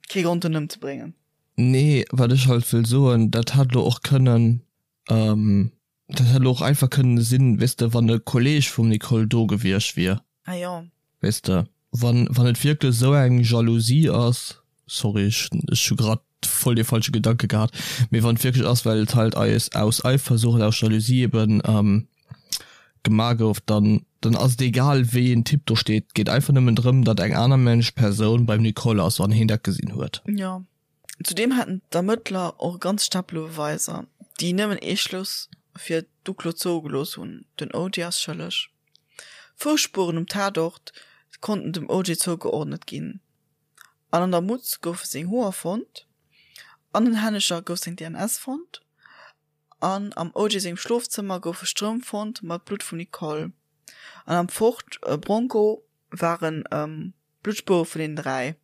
Kee Grond en ëmzebréngen. Nee, wat ech halt wëll soen, dat hätt lo och kënnen, dat hätt lo och einfach kënnen sinn, weess de, wann e Kolleg vum Nicole do gewiescht wier. Ah jo. Weess de, wann, wann et wierklech esou eng Jalousie ass, sorry, ech, ech hu grad voll dee falsche Gedanke gehat, mee wann et wierklech ass, well et halt eis aus Eifersucht, aus Jalousie eben gemaach gouf, dann, dann ass et egal wéi een Typ do steet, et geet einfach nëmmen drëm, datt eng aner Mensch, Persoun beim Nicole ass an heen dat gesinn huet. Jo. Zudeem hätten d'Ermëttler och e ganz Stapel u Beweiser, déi nëmmen ee Schluss fir d'Uklo zougelooss hunn, Den OJ ass schëlleg. Fousspueren um Tatort konnten dem OJ zougeordnet ginn an an der Mutz goufe seng Hoer fonnt, an den Hännecher gouf seng DNS fonnt an am OJ sengem Schlofzëmmer goufe Strëmp fonnt mat Blutt vum Nicole an am Ford Bronco ware Bluttspuere vun deenen 3.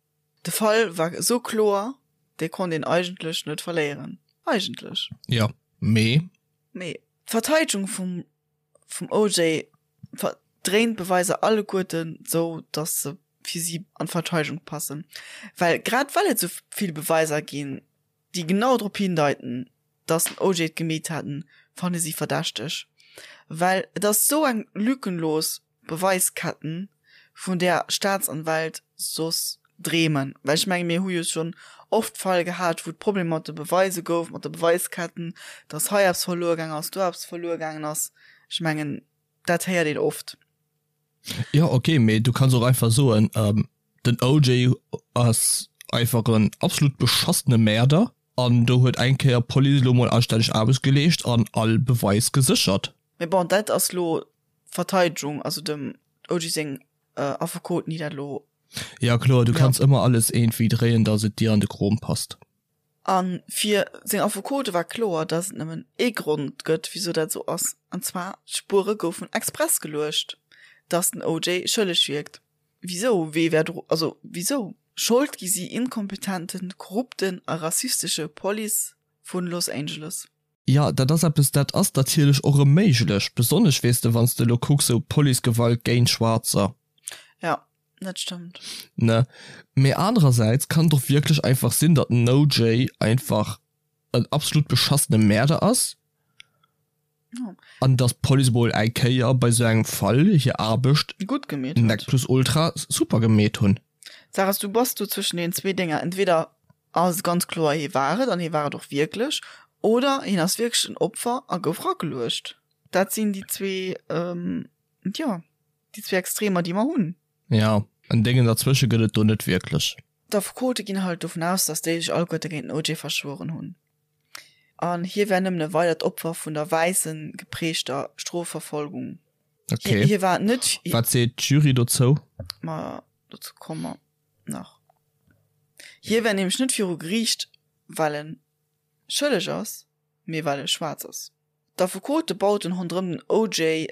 De Fall war esou kloer, dee konnt een eigentlech net verléieren. Eigentlech. Jo, mee. Mee d'Verteidegung vum vum OJ verdréint d'Beweiser alleguerten sou, datt se fir si an d'Verteidegung passen. Well grad well et sou vill Beweiser ginn, déi genau drop hindeiten, datt den OJ et gemeet haten, fanne si verdächteg. Well et ass sou eng lückenlos Beweisketten, vun där Staatsanwält soss dreemen. Well ech menge mir hu jo schonn oft Fall gehat, wou et Problemer mat de Beweise gouf, mat de Beweisketten, datt hei eppes verluer gaangen ass, do eppes verluer gaangen ass. Ech mengen, dat héiert een oft. Jo, ok, mee du kanns och einfach soen, den OJ ass einfach en absolut beschassene Mäerder an do huet eng Kéier d'Police elo mol anstänneg Aarbecht geleescht an all Beweis geséchert. Mee bon, dat ass lo d'Verteidegung, also dem OJ seng Affekoten, déi dat elo. Jo kloer, du kanns ëmmer alles iergendwéi dréien, datt et dir an de Krom passt. A fir seng Affekote war kloer, datt et nëmmen ee Grond gëtt, wisou dat esou ass, an zwar, d'Spuere goufen express geluecht, datt den OJ schëlleg wierkt. Wisou? Wee wär dru, also wisou? Schold gi si inkompetenten, korrupten a rassistesche Police vun Los Angeles. Jo, dat ass eppes, dat ass natierlech och erëm méiglech, besonnesch, weess de, wann s de elo kucks, esou Policegewalt géint Schwaarzer. Jo, dat stëmmt. Ne? Mee anerersäits kann et och wierklech einfach sinn, datt den OJ einfach en absolut beschassene Mäerder ass an datt d'Police emol eng Kéier bei esou engem Fall hir Aarbecht Gutt gemeet huet. nec plus ultra super gemeet hunn. D'Saach ass, du bass do zwëschen deenen zwee Dénger, entweder ass et ganz kloer, hie war et an hie war et och wierklech, oder hien ass wierklech en Opfer a gouf rageluecht. Dat sinn déi zwee, jo, déi zwee Extremer, déi mer hunn. Jo, en Déngen derzwësche gëtt et do net wierklech. D'Affekote ginn halt dovun aus, datt déi sech alleguerte géint den OJ verschwueren hunn an hie wär nëmmen e weidert Opfer vun der wäisse geprägter Strofverfolgung. Okay. Hie war net. Wat seet d'Jury dozou? Ma dozou komme mer nach. Hie wär nämlech net viru Geriicht, well en schëlleg ass, mee well e schwaarz ass. D'Affekote bauten ronderëm den OJ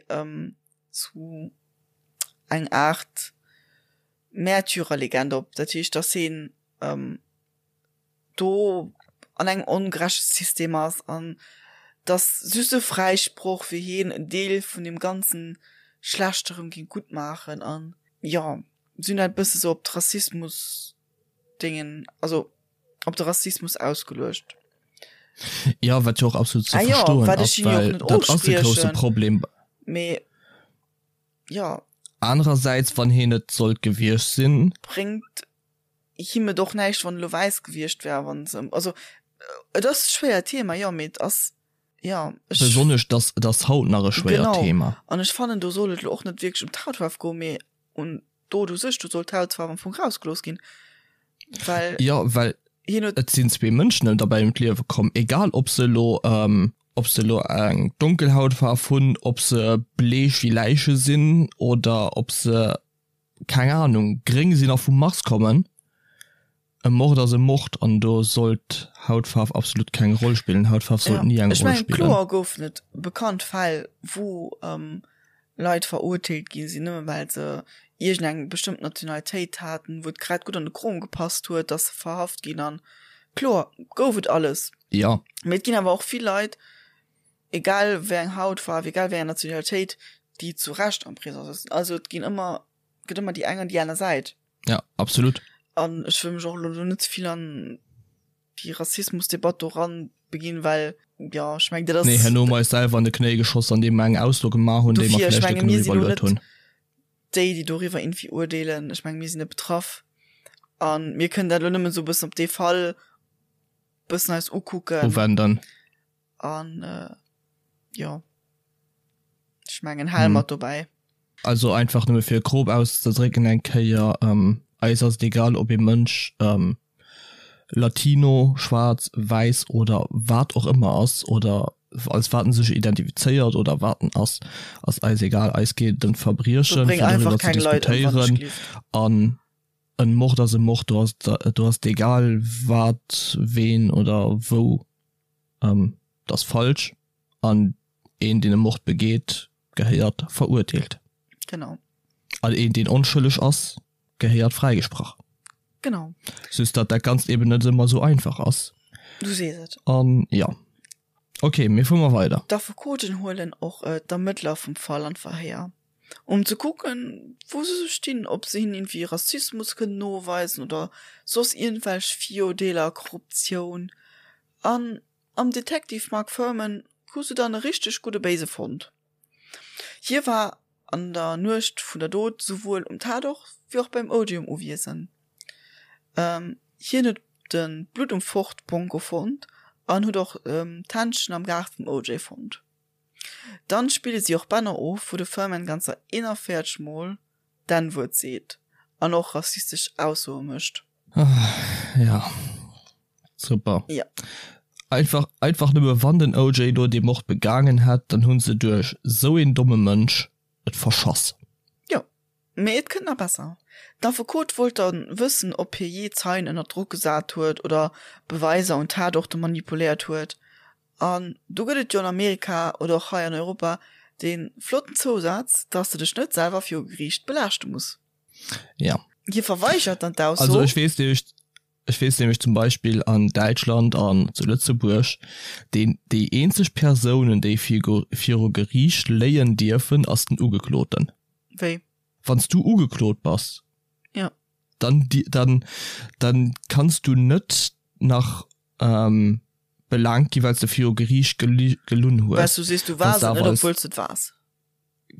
zu eng Aart Märtyrerlegend op, dat heescht, datt hien do an engem ongerechte System ass an datt just e Fräisproch fir hien en Deel vun deem ganzen Schlechte rëm géing gutt maachen an jo, si hunn dat e bësse sou op d'Rassismus-Déngen, also op de Rassismus ausgeluecht. Jo, wat jo och absolut ze verstoen ass, well dat ass e grousse Problem. Mee jo. Anerersäits, wann hien et sollt gewiescht sinn. Bréngt him et och näischt, wann e lo wäiss gewiescht wär, wann se, also et ass e schwéiert Thema, jo, mee et ass, jo, ech. Besonnesch, dass et ass haut nach e schwéiert Genau, Thema. an ech fannen, do soll et lo och net wierklech ëm d'Hautfaarf goen, mee un d'Dot u sech, do soll d'Hautfaarf am Fong rausgelooss ginn, well. Jo, well hien huet. Et sinn zwee Mënschen derbäi ëm d'Liewe komm, egal ob se elo, ob se elo eng donkel Hautfaarf hunn, ob se bleech wéi Läiche sinn oder ob se keng Ahnung, gréng sinn a vum Mars kommen. E Mord ass e Mord an do sollt Hautfaarf absolut keng Roll spillen. Hautfaarf sollt ni eng Ech Roll mengen, spillen. kloer goufen et bekannt Fäll, wou Leit verurteelt gi sinn, nëmme well se iergendeng bestëmmt Nationalitéit haten, wou et grad gutt an de Krom gepasst huet, dass se verhaft ginn an kloer gouf et alles. Jo. Mee et ginn awer och vill Leit, egal wéi eng Hautfaarf, egal wéi eng Nationalitéit, déi zu Recht am Prisong sëtzen. Also et ginn ëmmer, gëtt ëmmer déi eng an déi aner Säit. Ja, absolut. An ech wëll mech och elo do net ze vill an déi Rassismusdebatt do ran beginn, well jo, ech mengen dat ass. Nee, herno hu mer eis selwer an de Knéi geschoss, andeem mer eng Ausso gemaach hunn, déi mer Dofir, ech vläicht net menge mir genuch sinn elo iwwerluet net hunn. déi, déi doriwwer irgendwie urdeelen. Ech menge mir sinn net betraff a mir kënnen dat elo nëmmen esou e bëssen op dee Fall bëssen eis ukucken. Uwenden. An jo, ech mengen hale mer et dobäi. Also einfach nëmme fir grob auszedrécken eng Kéier, eis ass et egal ob ee Mënsch Latino, schwaarz, wäiss oder wat och ëmmer ass oder als wat en sech identifizéiert oder wat en ass, ass eis egal. Eis geet et ëm d'Verbriechen, Bréng fir einfach doriwwer ze keng Leit ëm, wann ech diskutéieren gelift. an en Mord ass e Mord, do ass do ass et egal wat, ween oder wou. Dat ass falsch an een deen e Mord begeet gehéiert verurteelt. Genau. An een deen onschëlleg ass gehéiert fräigesprach. Genau. Just datt dat Ganzt eben net ëmmer esou einfach ass. Du sees et. An jo. Ok, mee fuere mer weider. D'Affekoten huelen och d'Ermëttler vum Fall an d'Verhéier, um ze kucken, wou se sou stinn, ob se hinnen iergendwéi Rassismus kënnen noweisen oder soss iergendwelch Virurdeeler, Korruptioun. An am Detective Mark Fuhrman hu se dann e richteg gudde Béise fonnt. Hie war an der Nuecht vun der Dot souwuel um Tatort wéi och beim Odium uwiesend. Hien huet de Blutt um Ford Bronco fonnt an huet och d'Händschen am Gaart vum OJ fonnt. Dann spille si och Bänner of, wou de Fuhrman ganzer 41 Mol d'N-Wuert seet an och rassistesch Aussoe mécht. Ja, super. Ja. Einfach, einfach nëmme wann den OJ do dee Mord begaangen hätt, dann hunn se duerch sou een domme Mënsch et verschass. Jo, mee et kënnt nach besser. D'Affekot wollt dann wëssen, ob hie jee Zeien ënner Drock gesat huet oder Beweiser un Tatorte manipuléiert huet. An do gëtt et jo an Amerika oder och hei an Europa dee flotten Zousaz, dass de dech net selwer viru Geriicht belaaschte muss. Ja. Hie verweigert dann d'Ausso. Also ech weess nämlech, ech weess nämlech zum Beispill an Däitschland an zu Lëtzebuerg, deen, déi eenzeg Persounen, déi viru Geriicht léien dierfen, ass den Ugekloten. Wéi? Wann s du ugeklot bass, Ja. dann, dann, dann kanns du net nach belaangt gi well s de viru Geriicht gelunn hues. Well s du sees, du waars et net, obwuel s de et waars.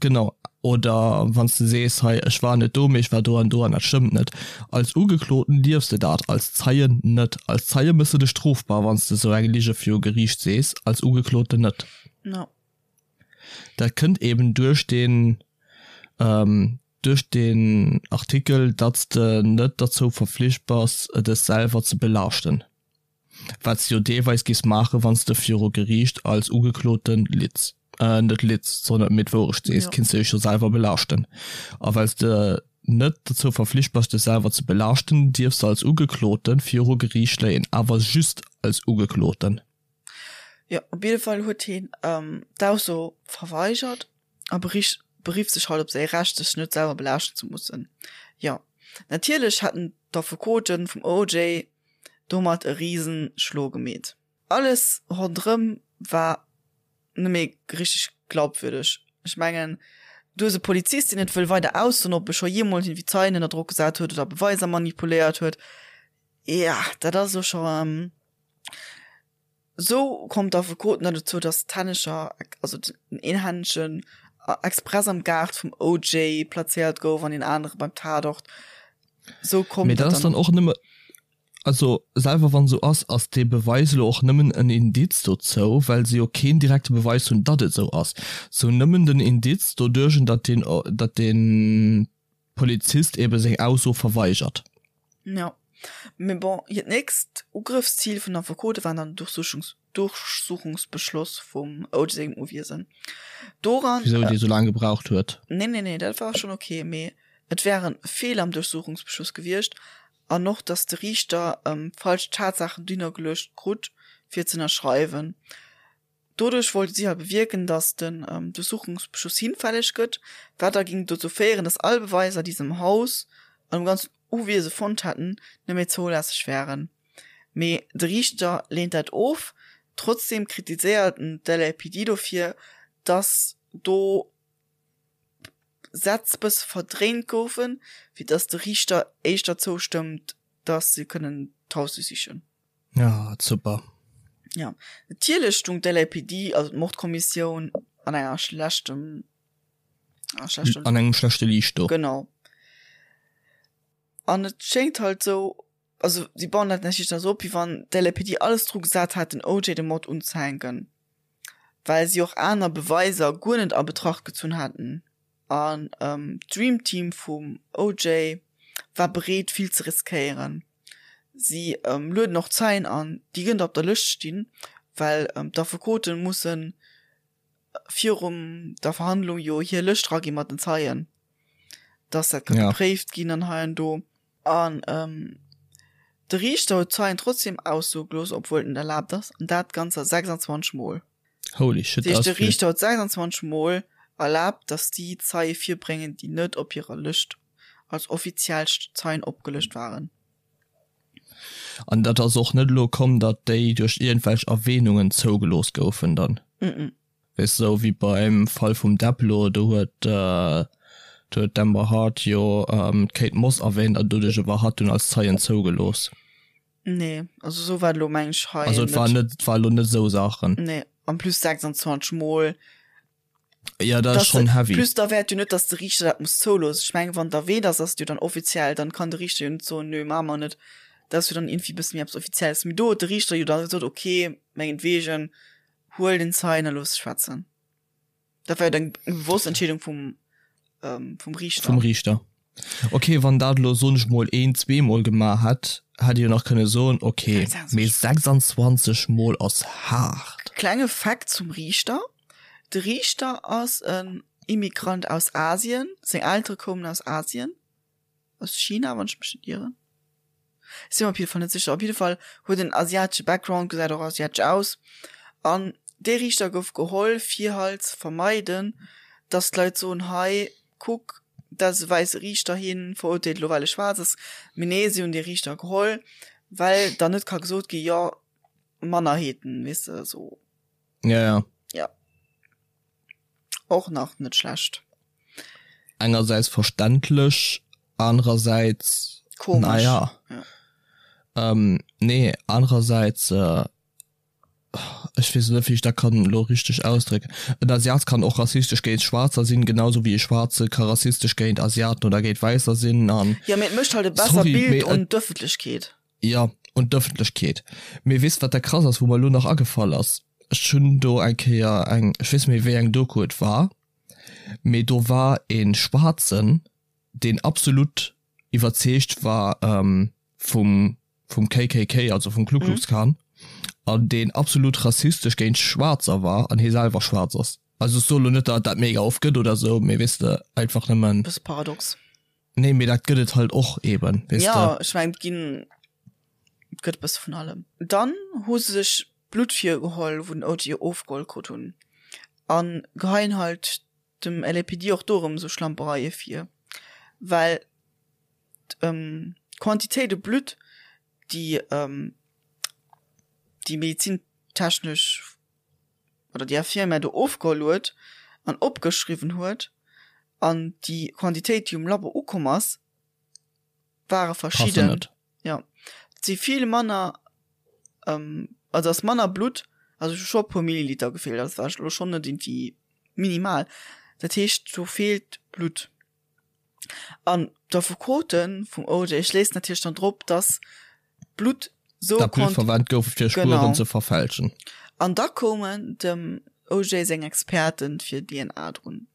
Genau. Oder wann s de sees, hei ech war net do, mee ech war do an do an dat stëmmt net. Als Ugekloten dierfs de dat, als Zeien net. Als Zeie méchs de dech strofbar, wann s de esou eng Lige viru Geriicht sees, als Ugekloten net. No. Dat kënnt eben duerch deen, duerch deen Artikel, datt s de net derzou verflicht bass, dech selwer ze belaaschten. Wat s de jo deelweis géifs maachen, wann s de viru Geriicht als Ugekloten litz, net litz, sondern mee d'Wourecht sees, kinns de dech jo selwer belaaschten. A well s de net dozou verflicht bass, dech selwer ze belaaschten, dierfs de als Ugekloten viru Geriicht léien, awer just als Ugekloten. Jo, op jidde Fall huet hien d'Ausso verweigert a berifft sech halt op säi Recht, sech net selwer belaaschten ze mussen. Jo, natierlech hätten d'Affekote vum OJ domat e riesen Schlo gemeet. Alles ronderëm war net méi richteg glaubwürdeg. Ech mengen, du hues e Polizist, deen net wëll weider aussoen, ob e scho jeemools iergendwéi Zeien ënner Drock gesat huet oder Beweiser manipuléiert huet. Ja, dat ass elo scho. Sou koum d'Affekoten dann dozou, datt d'Hännecher, also den een Händchen express am Gaart vum OJ plazéiert gouf an deen anere beim Tatort. Sou koum Mee dat ass dann och nëmme, also selwer wann esou ass, ass dee Beweis elo och nëmmen en Indiz dozou, well se jo keen direkte Beweis hunn, datt et esou ass. Se hunn nëmmen den Indiz doduerch, datt deen, datt deen Polizist ebe seng Ausso verweigert. Jo, mee bon, hiert nächst Ugrëffszil vun den Affekote war dann den Durchsuchungsbeschloss vum OJ sengem Uwiesen. Doran. Wisou dee sou laang gebraucht huet? Nee, nee, nee, dat war schonn ok, mee et wäre Feeler am Durchsuchungsbeschluss gewiescht an och, datt de Riichter falsch Tatsaachen dohinner geluecht krut, fir ze ënnerschreiwen. Doduerch wollte si hei bewierken, datt den Durchsuchungsbeschluss hinfälleg gëtt, wat da géing dozou féieren, datt all Beweiser, déi se am Haus an um ganzen Uwiese fonnt hätten, net méi zoulässeg wären. Mee de Riichter leent dat of. Trotzdeem kritiséiert en d'LAPD dofir, datt do. Sätz bësse verdréint goufen, fir dass de Riichter éischter zoustëmmt, dass se kënnen d'Haus duerchsichen. Ja, super. Ja, natierlech stung d'LAPD, also d'Mordkommissioun, an enger schlechtem, an engem schlechte Liicht do. Genau. An et schéngt halt sou, also si bauen dat natierlech da sou op, wéi wann d'LAPD alles dru gesat hätt, den OJ de Mord unzehänken, well si och aner Beweiser guer net a Betracht gezunn haten. An d'Dream Team vum OJ war bereet, vill ze riskéieren. Si lueden och Zeien an, déi gënnt op der Lëscht stinn, well d'Affekote musse virum der Verhandlung jo hir Lëscht ragi mat den Zeien, dass dat ka gepréift ginn an hei an do. An de Riichter huet d'Zeien trotzdem aussoe gelooss, obwuel et net erlaabt ass, an dat ganzer 26 Mol. Holy shit, dat ass vill. De Riichter huet 26 Mol erlaabt, dass déi Zeie virbréngen, déi net op hirer Lëscht als offiziell Zeien opgelëscht waren. An dat ass och net elo komm, datt déi duerch iergendwelch Erwähnungen zougelooss goufen dann? Mm. Weess de, esou wéi beim Fall vum Depp elo, do huet do huet d'Amber Heard jo d'Kate Moss erwähnt an doduerch war hatt dunn als Zeien zougelooss. Nee, also esou war et elo meng ech hei net. Also et war net, et war elo net esou Saachen. Nee, en plus 26 mol. Ja, dat ass schonn heavy. Plus da wäert jo net, datt de Riichter dat muss zouloossen. Ech mengen, wann et erwähnt ass, ass et jo dann offiziell, dann kann de Riichter jo net soen, nö, maache mer net. Dat ass jo dann iergendwéi e bësse méi eppes Offizielles. Mee do huet de Riichter jo da gesot, okay, mengetwegen, huel den Zeien a looss schwätzen. Dat war jo eng bewosst Entscheedung vum, ähm, vum Riichter. Vum Riichter. Okay, wann dat elo, soen ech mol, een, zweemol gemaach hätt, hätt ee jo nach kënne soen, okay, mee 26 mol ass haart. Klenge Fakt zum Riichter, De Riichter ass en Immigrant aus Asien, seng Eltere koumen aus Asien. aus China, wann ech mech net ieren. Ech si mer op jidde Fall net sécher. Op jidde Fall huet en asiatesche Background, gesäit och asiatesch aus. An dee Riichter gouf geholl, fir halt ze vermeiden, dass d'Leit soen, hei kuck, dat ass e wäisse Riichter, hien verurteelt elo well e schwaarz ass. Mee nee, si hunn dee Riichter geholl, well dann net ka gesot gi, jo, Mannerheeten, weess de, esou. Ja, ja. Ja. Och nach net schlecht. Engersäits verständlech, anerersäits Komesch. Naja. Ja. Ähm, nee, anerersäits, äh, ech weess net, wéi ech dat kann elo richteg ausdrécken. En Asiat kann och rassistesch géint Schwaarzer sinn, genau sou wéi e Schwaarze ka rassistesch géint Asiaten oder géint Wäisser sinn an. Ja, mee et mécht halt e besser Sorry, Bild mee un et. d'Ëffentlechkeet. Jo, un d'Ëffentlechkeet. Mee weess wat da krass ass, wou mer elo nach agefall ass? Ech hunn do eng Kéier eng, ech weess net méi wéi eng Doku et war, mee do war e Schwaarzen, deen absolut iwwerzeegt war vum vum KKK, also vum Ku Klux Klan, an deen absolut rassistesch géint Schwaarzer war an hie selwer schwaarz ass. Also ech soe lo net, datt et dat mega oft gëtt oder esou, mee weess de, einfach nëmmen. Bësse paradox. Nee, mee dat gëtt et halt och eben, weess de. Ja, ech mengen, et ginn, et gëtt e bësse vun allem. Dann hu se sech Blutt virgeholl, wou den OJ ofgeholl krut hunn, a geheien halt dem LAPD och do erëm esou Schlampereie vir, well d'Quantitéit u Blutt, déi déi medizintechnesch oder déi Infirmière do ofgeholl huet an opgeschriwwen huet an déi Quantitéit, déi um Labo ukomm ass, ware verschidden. Jo, et si vill manner, also ass manner Blutt, also hu scho e puer Milliliter gefeelt, also war elo schonn net iergendwéi minimal. Dat heescht, do feelt Blutt. An d'Affekote vum OJ schléissen natierlech dann drop, dass Blutt sou Dat Blutt verwennt gouf, fir Spueren ze verfälschen. An da koumen dem OJ seng Experten fir DNA drun.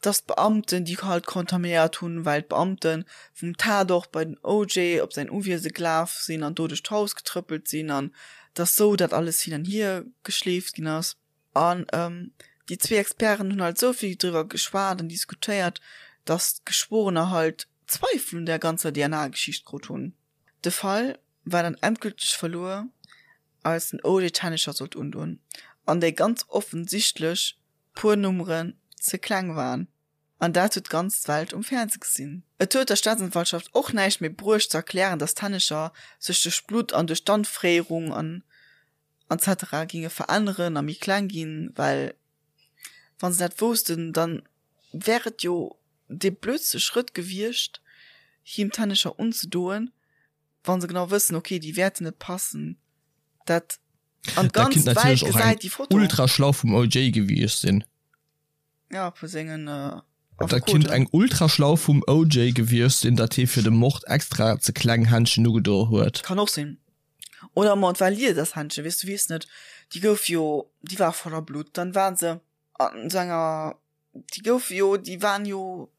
Dass d'Beamten déi halt kontaminéiert hunn, well d'Beamte vum Tatort bei den OJ op säin Uwiese gelaf sinn an do duerch d'Haus getrëppelt sinn an dass sou dat alles hin an hier geschleeft ginn ass. An déi zwee Experten hunn halt esou vill driwwer geschwat an diskutéiert, datt d'Geschworener halt Zweifel un där ganzer DNA-Geschicht krut hunn. De Fall war dann endgülteg verluer, als den OJ d'Hännecher sollt undoen an déi ganz offensichtlech puer Nummeren ze kleng waren. An dat huet d'ganz Welt um Fernseh gesinn. Et huet der Staatsanwaltschaft och näischt méi bruecht ze erklären, datt d'Hännecher sech duerch d'Blutt an duerch d'Anfréierung an etc. Ginge veränneren a méi kleng ginn, well wa se dat woussten, dann. wär et jo dee blödste Schrëtt gewiescht, him d'Hännecher unzedoen, wa se genau wëssen, okay, déi wäerten net passen. Dat an Dat d'ganz kinnt Welt natierlech och eng gesäit déi Foto. ultra schlau vum OJ gewiescht sinn. Ja, vu sengen Dat kinnt Affekoten. eng ultra schlau vum OJ gewiescht sinn, datt hie fir de Mord extra ze kleng Händschen ugedo huet. Kann och sinn. Oder ma et war Liedershändchen, weess du weess net. Déi gouf jo, déi war voller Blutt. Dann war se an sou enger, déi gouf jo, déi waren jo,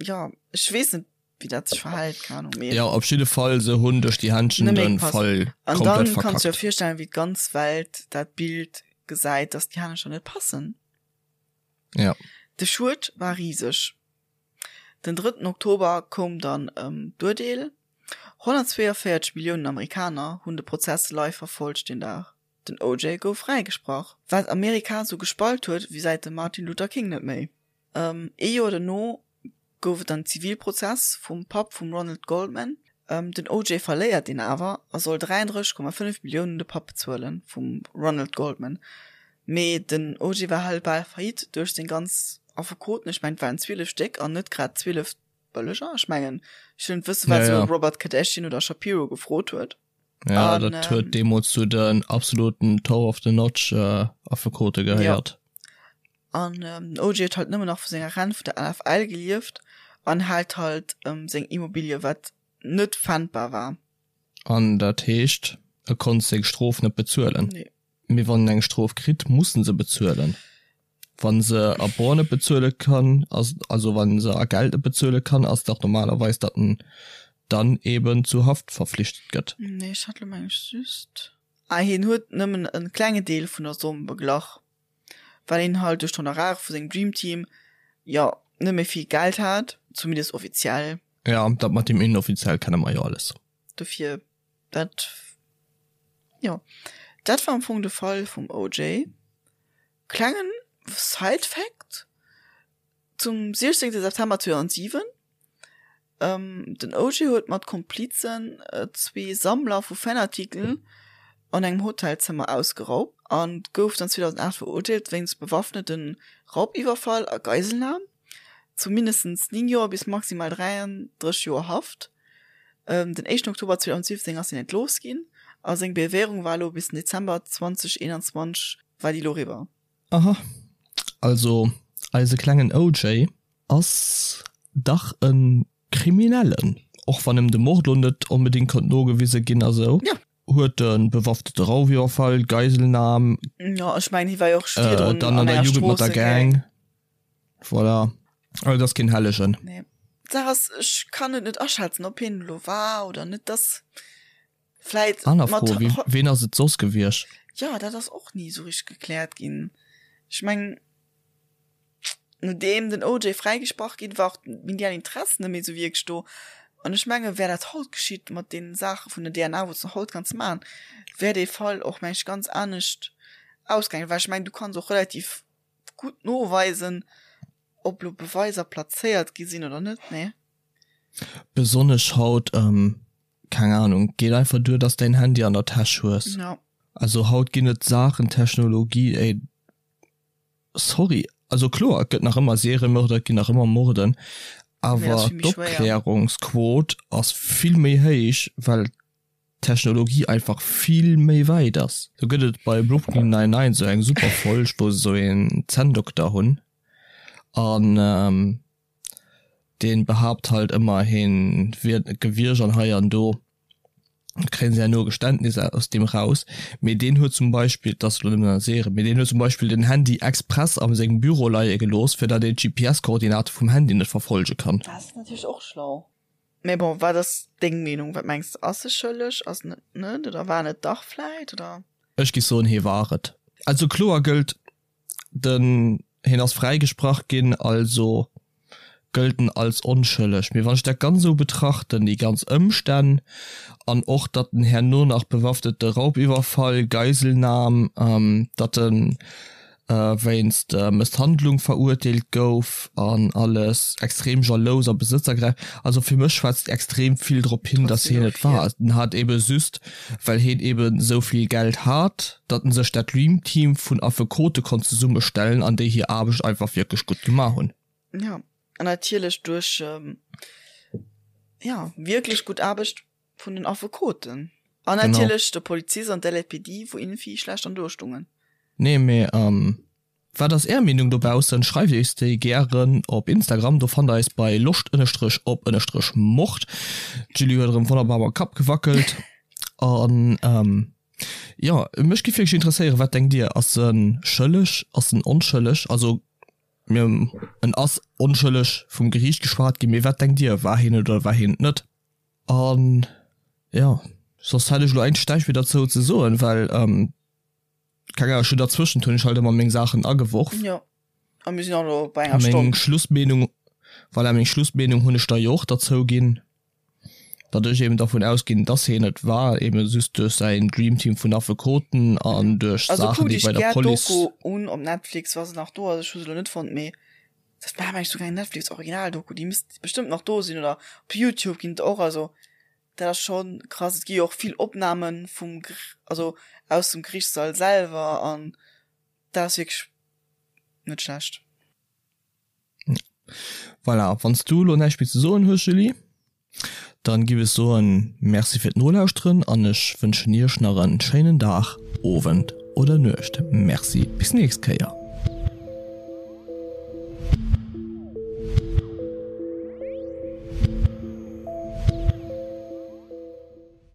jo, ech weess net wéi dat sech verhält, keng Ahnung, mee. Jo, op jidde Fall, se hunn duerch déi Händchen Net méi de gepasst. Fall An komplett dann kanns du dir verkackt. virstellen, wéi d'ganz Welt dat Bild gesäit, dass déi Hännercher net passen. Ja. De Schued war riseg. Den drëtten Oktober koum dann d'Urteel, 142 Milliounen Amerikaner hunn de Prozess live verfollegt deen Dag. Den OJ gouf fräigesprach, wat Amerika sou gespalt huet wéi säit dem Martin Luther King net méi. Ee Joer dono gouf et dann Zivilprozess vum Papp vum Ronald Goldman. Den OJ verléiert deen awer a soll 33,5 Milliounen un de Papp bezuelen vum Ronald Goldman. Mee den OJ war halt bal faillite duerch seng ganz Affekoten, ech mengen et waren 12 Stéck an net grad 12 bëlleger. Ech mengen ech wëll net wëssen wat Ja, sou ja. Robert Kardashian oder Shapiro gefrot huet. Ja, An dat huet ähm, deemools zu den absoluten Top of the Notch äh, Affekote ja. gehéiert. An ähm, den OJ huet halt nëmmen nach vu senger Rent vun der NFL gelieft an hat halt ähm, seng Immobilie, wat net pfändbar war. An dat heescht, e konnt seng Strof net bezuelen. Nee. Mee wann en eng Strof kritt, muss en se bezuelen. Wann se a Bor net bezuele kann, ass, also wann se a Geld net bezuele kann, ass dach normalerweis, datt en dann eben zu Haft verflichtet gëtt. Nee, ech hat lo meng ech just. Ah, hien huet nëmmen e klenge Deel vun der Somm beglach, well hien halt duerch d'Honorare vu sengem Dream Team, jo, net méi vill Geld hat, zumindest offiziell. Ja, dat mat deem inoffiziell kenne mer jo alles. Dofir, dat, jo, dat war am Fong de Fall vum OJ. Klengen Side-Fact, Zum 16 September 2007, den OJ huet mat Komplizen zwee Sammler vu Fanartikel an engem Hotelzëmmer ausgeraubt an gouf dann 2008 verurteelt wéinst bewaffnete Raubiwwerfall a Geiselnam zu mindestens 9 Joer bis maximal 33 Joer Haft. Den éischten Oktober 2017 ass hien entlooss ginn a seng Bewährung war elo bis den Dezember 2021 war déi elo eriwwer. Aha, also eise klengen OJ ass dach e Kriminellen, och wann em de Mord lo net onbedéngt konnt nogewise ginn a sou. Jo. Huet e bewaffnete Raufiwwerfall, Geiselnam, Jo, ech mengen hie war jo och virdrun dann an an der enger Jugend mat der Stroossegang. Gang, voilà. Also et ass keen Hellegen. Nee. D'Saach ass, ech kann et net aschätzen, ob hien elo war oder net. Dass vläit Aner mat Fro, wie, ween ass et soss gewiescht? Jo, dat ass och ni esou richteg gekläert ginn. Ech mengen, nodeem den OJ fräigesprach ginn war, och d'medial Interesse net méi esou wierklech do. An ech menge wär dat haut geschitt mat deene Saache vun der DNA, wou s de haut kanns maachen, wär dee Fall och, meng ech, ganz anescht ausgaangen. Well ech mengen, du kanns och relativ gutt noweisen, ob lo Beweiser plazéiert gi sinn oder net, nee? Besonnesch haut, keng Ahnung, geet einfach duer, dass däin Handy an der Täsch hues. Ja. Also haut ginn et Saachen, Technologie, ey, sorry, also kloer, et gëtt nach ëmmer Seriemörder, et ginn nach ëmmer Morden, Mee ass awer vill méi schwéier. d'Opklärungsquot ass vill méi héich, well d'Technologie einfach vill méi wäit ass. Do gëtt et bei Brooklyn Nine-Nine sou eng super Folg, wou se sou een Zänndokter hunn an deen behaapt halt ëmmer heen wier et net gewiescht an hei an do kréien se herno e Geständnis aus deem raus. Mee deen huet zum Beispill, et ass elo nëmmen an der Serie, mee deen huet zum Beispill den Handy express a sengem Büro leie gelooss, fir datt een d'GPS-Koordinate vum Handy net verfollege kann. Dat ass natierlech och schlau. Mee bon, wat ass deng Meenung? Wat mengs de, ass e schëlleg, ass en et net oder war en et dach vläit oder? Ech giff soen, hee war et. Also kloer gëllt, den hien ass fräigesprach ginn, also gëllt en als onschëlleg. Mee wann ech dat ganz esou betrachten, déi ganz Ëmstänn an och datt en herno nach bewaffnete Raubiwwerfall, Geiselnam, datt en wéinst Mësshandlung verurteelt gouf an alles, extrem jalous a besëtzergräif, also fir mech schwätzt extrem vill drop hin, datt hien et war. En hat ebe just, well hien eben esou vill Geld hat, datt en sech dat Dream Team vun Affekote konnt zesummestellen an déi hir Aarbecht einfach wierklech gutt gemaach hunn. Ja, an natierlech duerch, ja, wierklech gutt Aarbecht vun den Affekoten. An natierlech de Polizist an d'LAPD, wou iergendwéi schlecht an do stungen. Nee, mee wat ass är Meenung dobaussen? Schreift eis déi gären op Instagram, do fannt der eis bei loscht ënnerstrech op ënnerstrech mord. D'Julie huet erëm wonnerbar mam Kapp gewackelt. An jo, mech giff wierklech interesséieren, wat denkt dir? Ass en schëlleg? Ass en onschëlleg? Also mir en ass onschëlleg vum Geriicht geschwat ginn, mee wat denkt dir, war hien et oder war hien et net? An jo, soss hätt ech elo eigentlech näischt méi derzou ze soen, well keng Ahnung, ech hunn derzwëschent hunn ech halt ëmmer meng Saachen ageworf. Jo, a mir sinn och elo bei enger Stonn. Meng Schlussmeenung, voilà, meng Schlussmeenung hunn ech da jo och derzou ginn, datt ech eben dervun ausginn, datt hien et war, eben just duerch säin Dreamteam vun Affekoten an duerch Also Saachen, kuckt déi iech bei der gär Police. d'Doku un op Netflix, wa se nach do ass, ech hu se elo net fonnt, mee Dat war mengen ech souguer eng Netflix Original Doku, déi misst bestëmmt nach do sinn oder op Youtube ginn et och, also dat ass schon krass. Et gi jo och vill Opnahmen vum also aus dem Gerichtssall selwer an dat ass wierklech net schlecht. Voilà, wann s du elo näischt méi ze soen hues Julie, dann giff ech soen Merci fir d'Nolauschteren an ech wënschen iech nach en schéinen Dag, Owend oder Nuecht. Merci, bis nächst Kéier.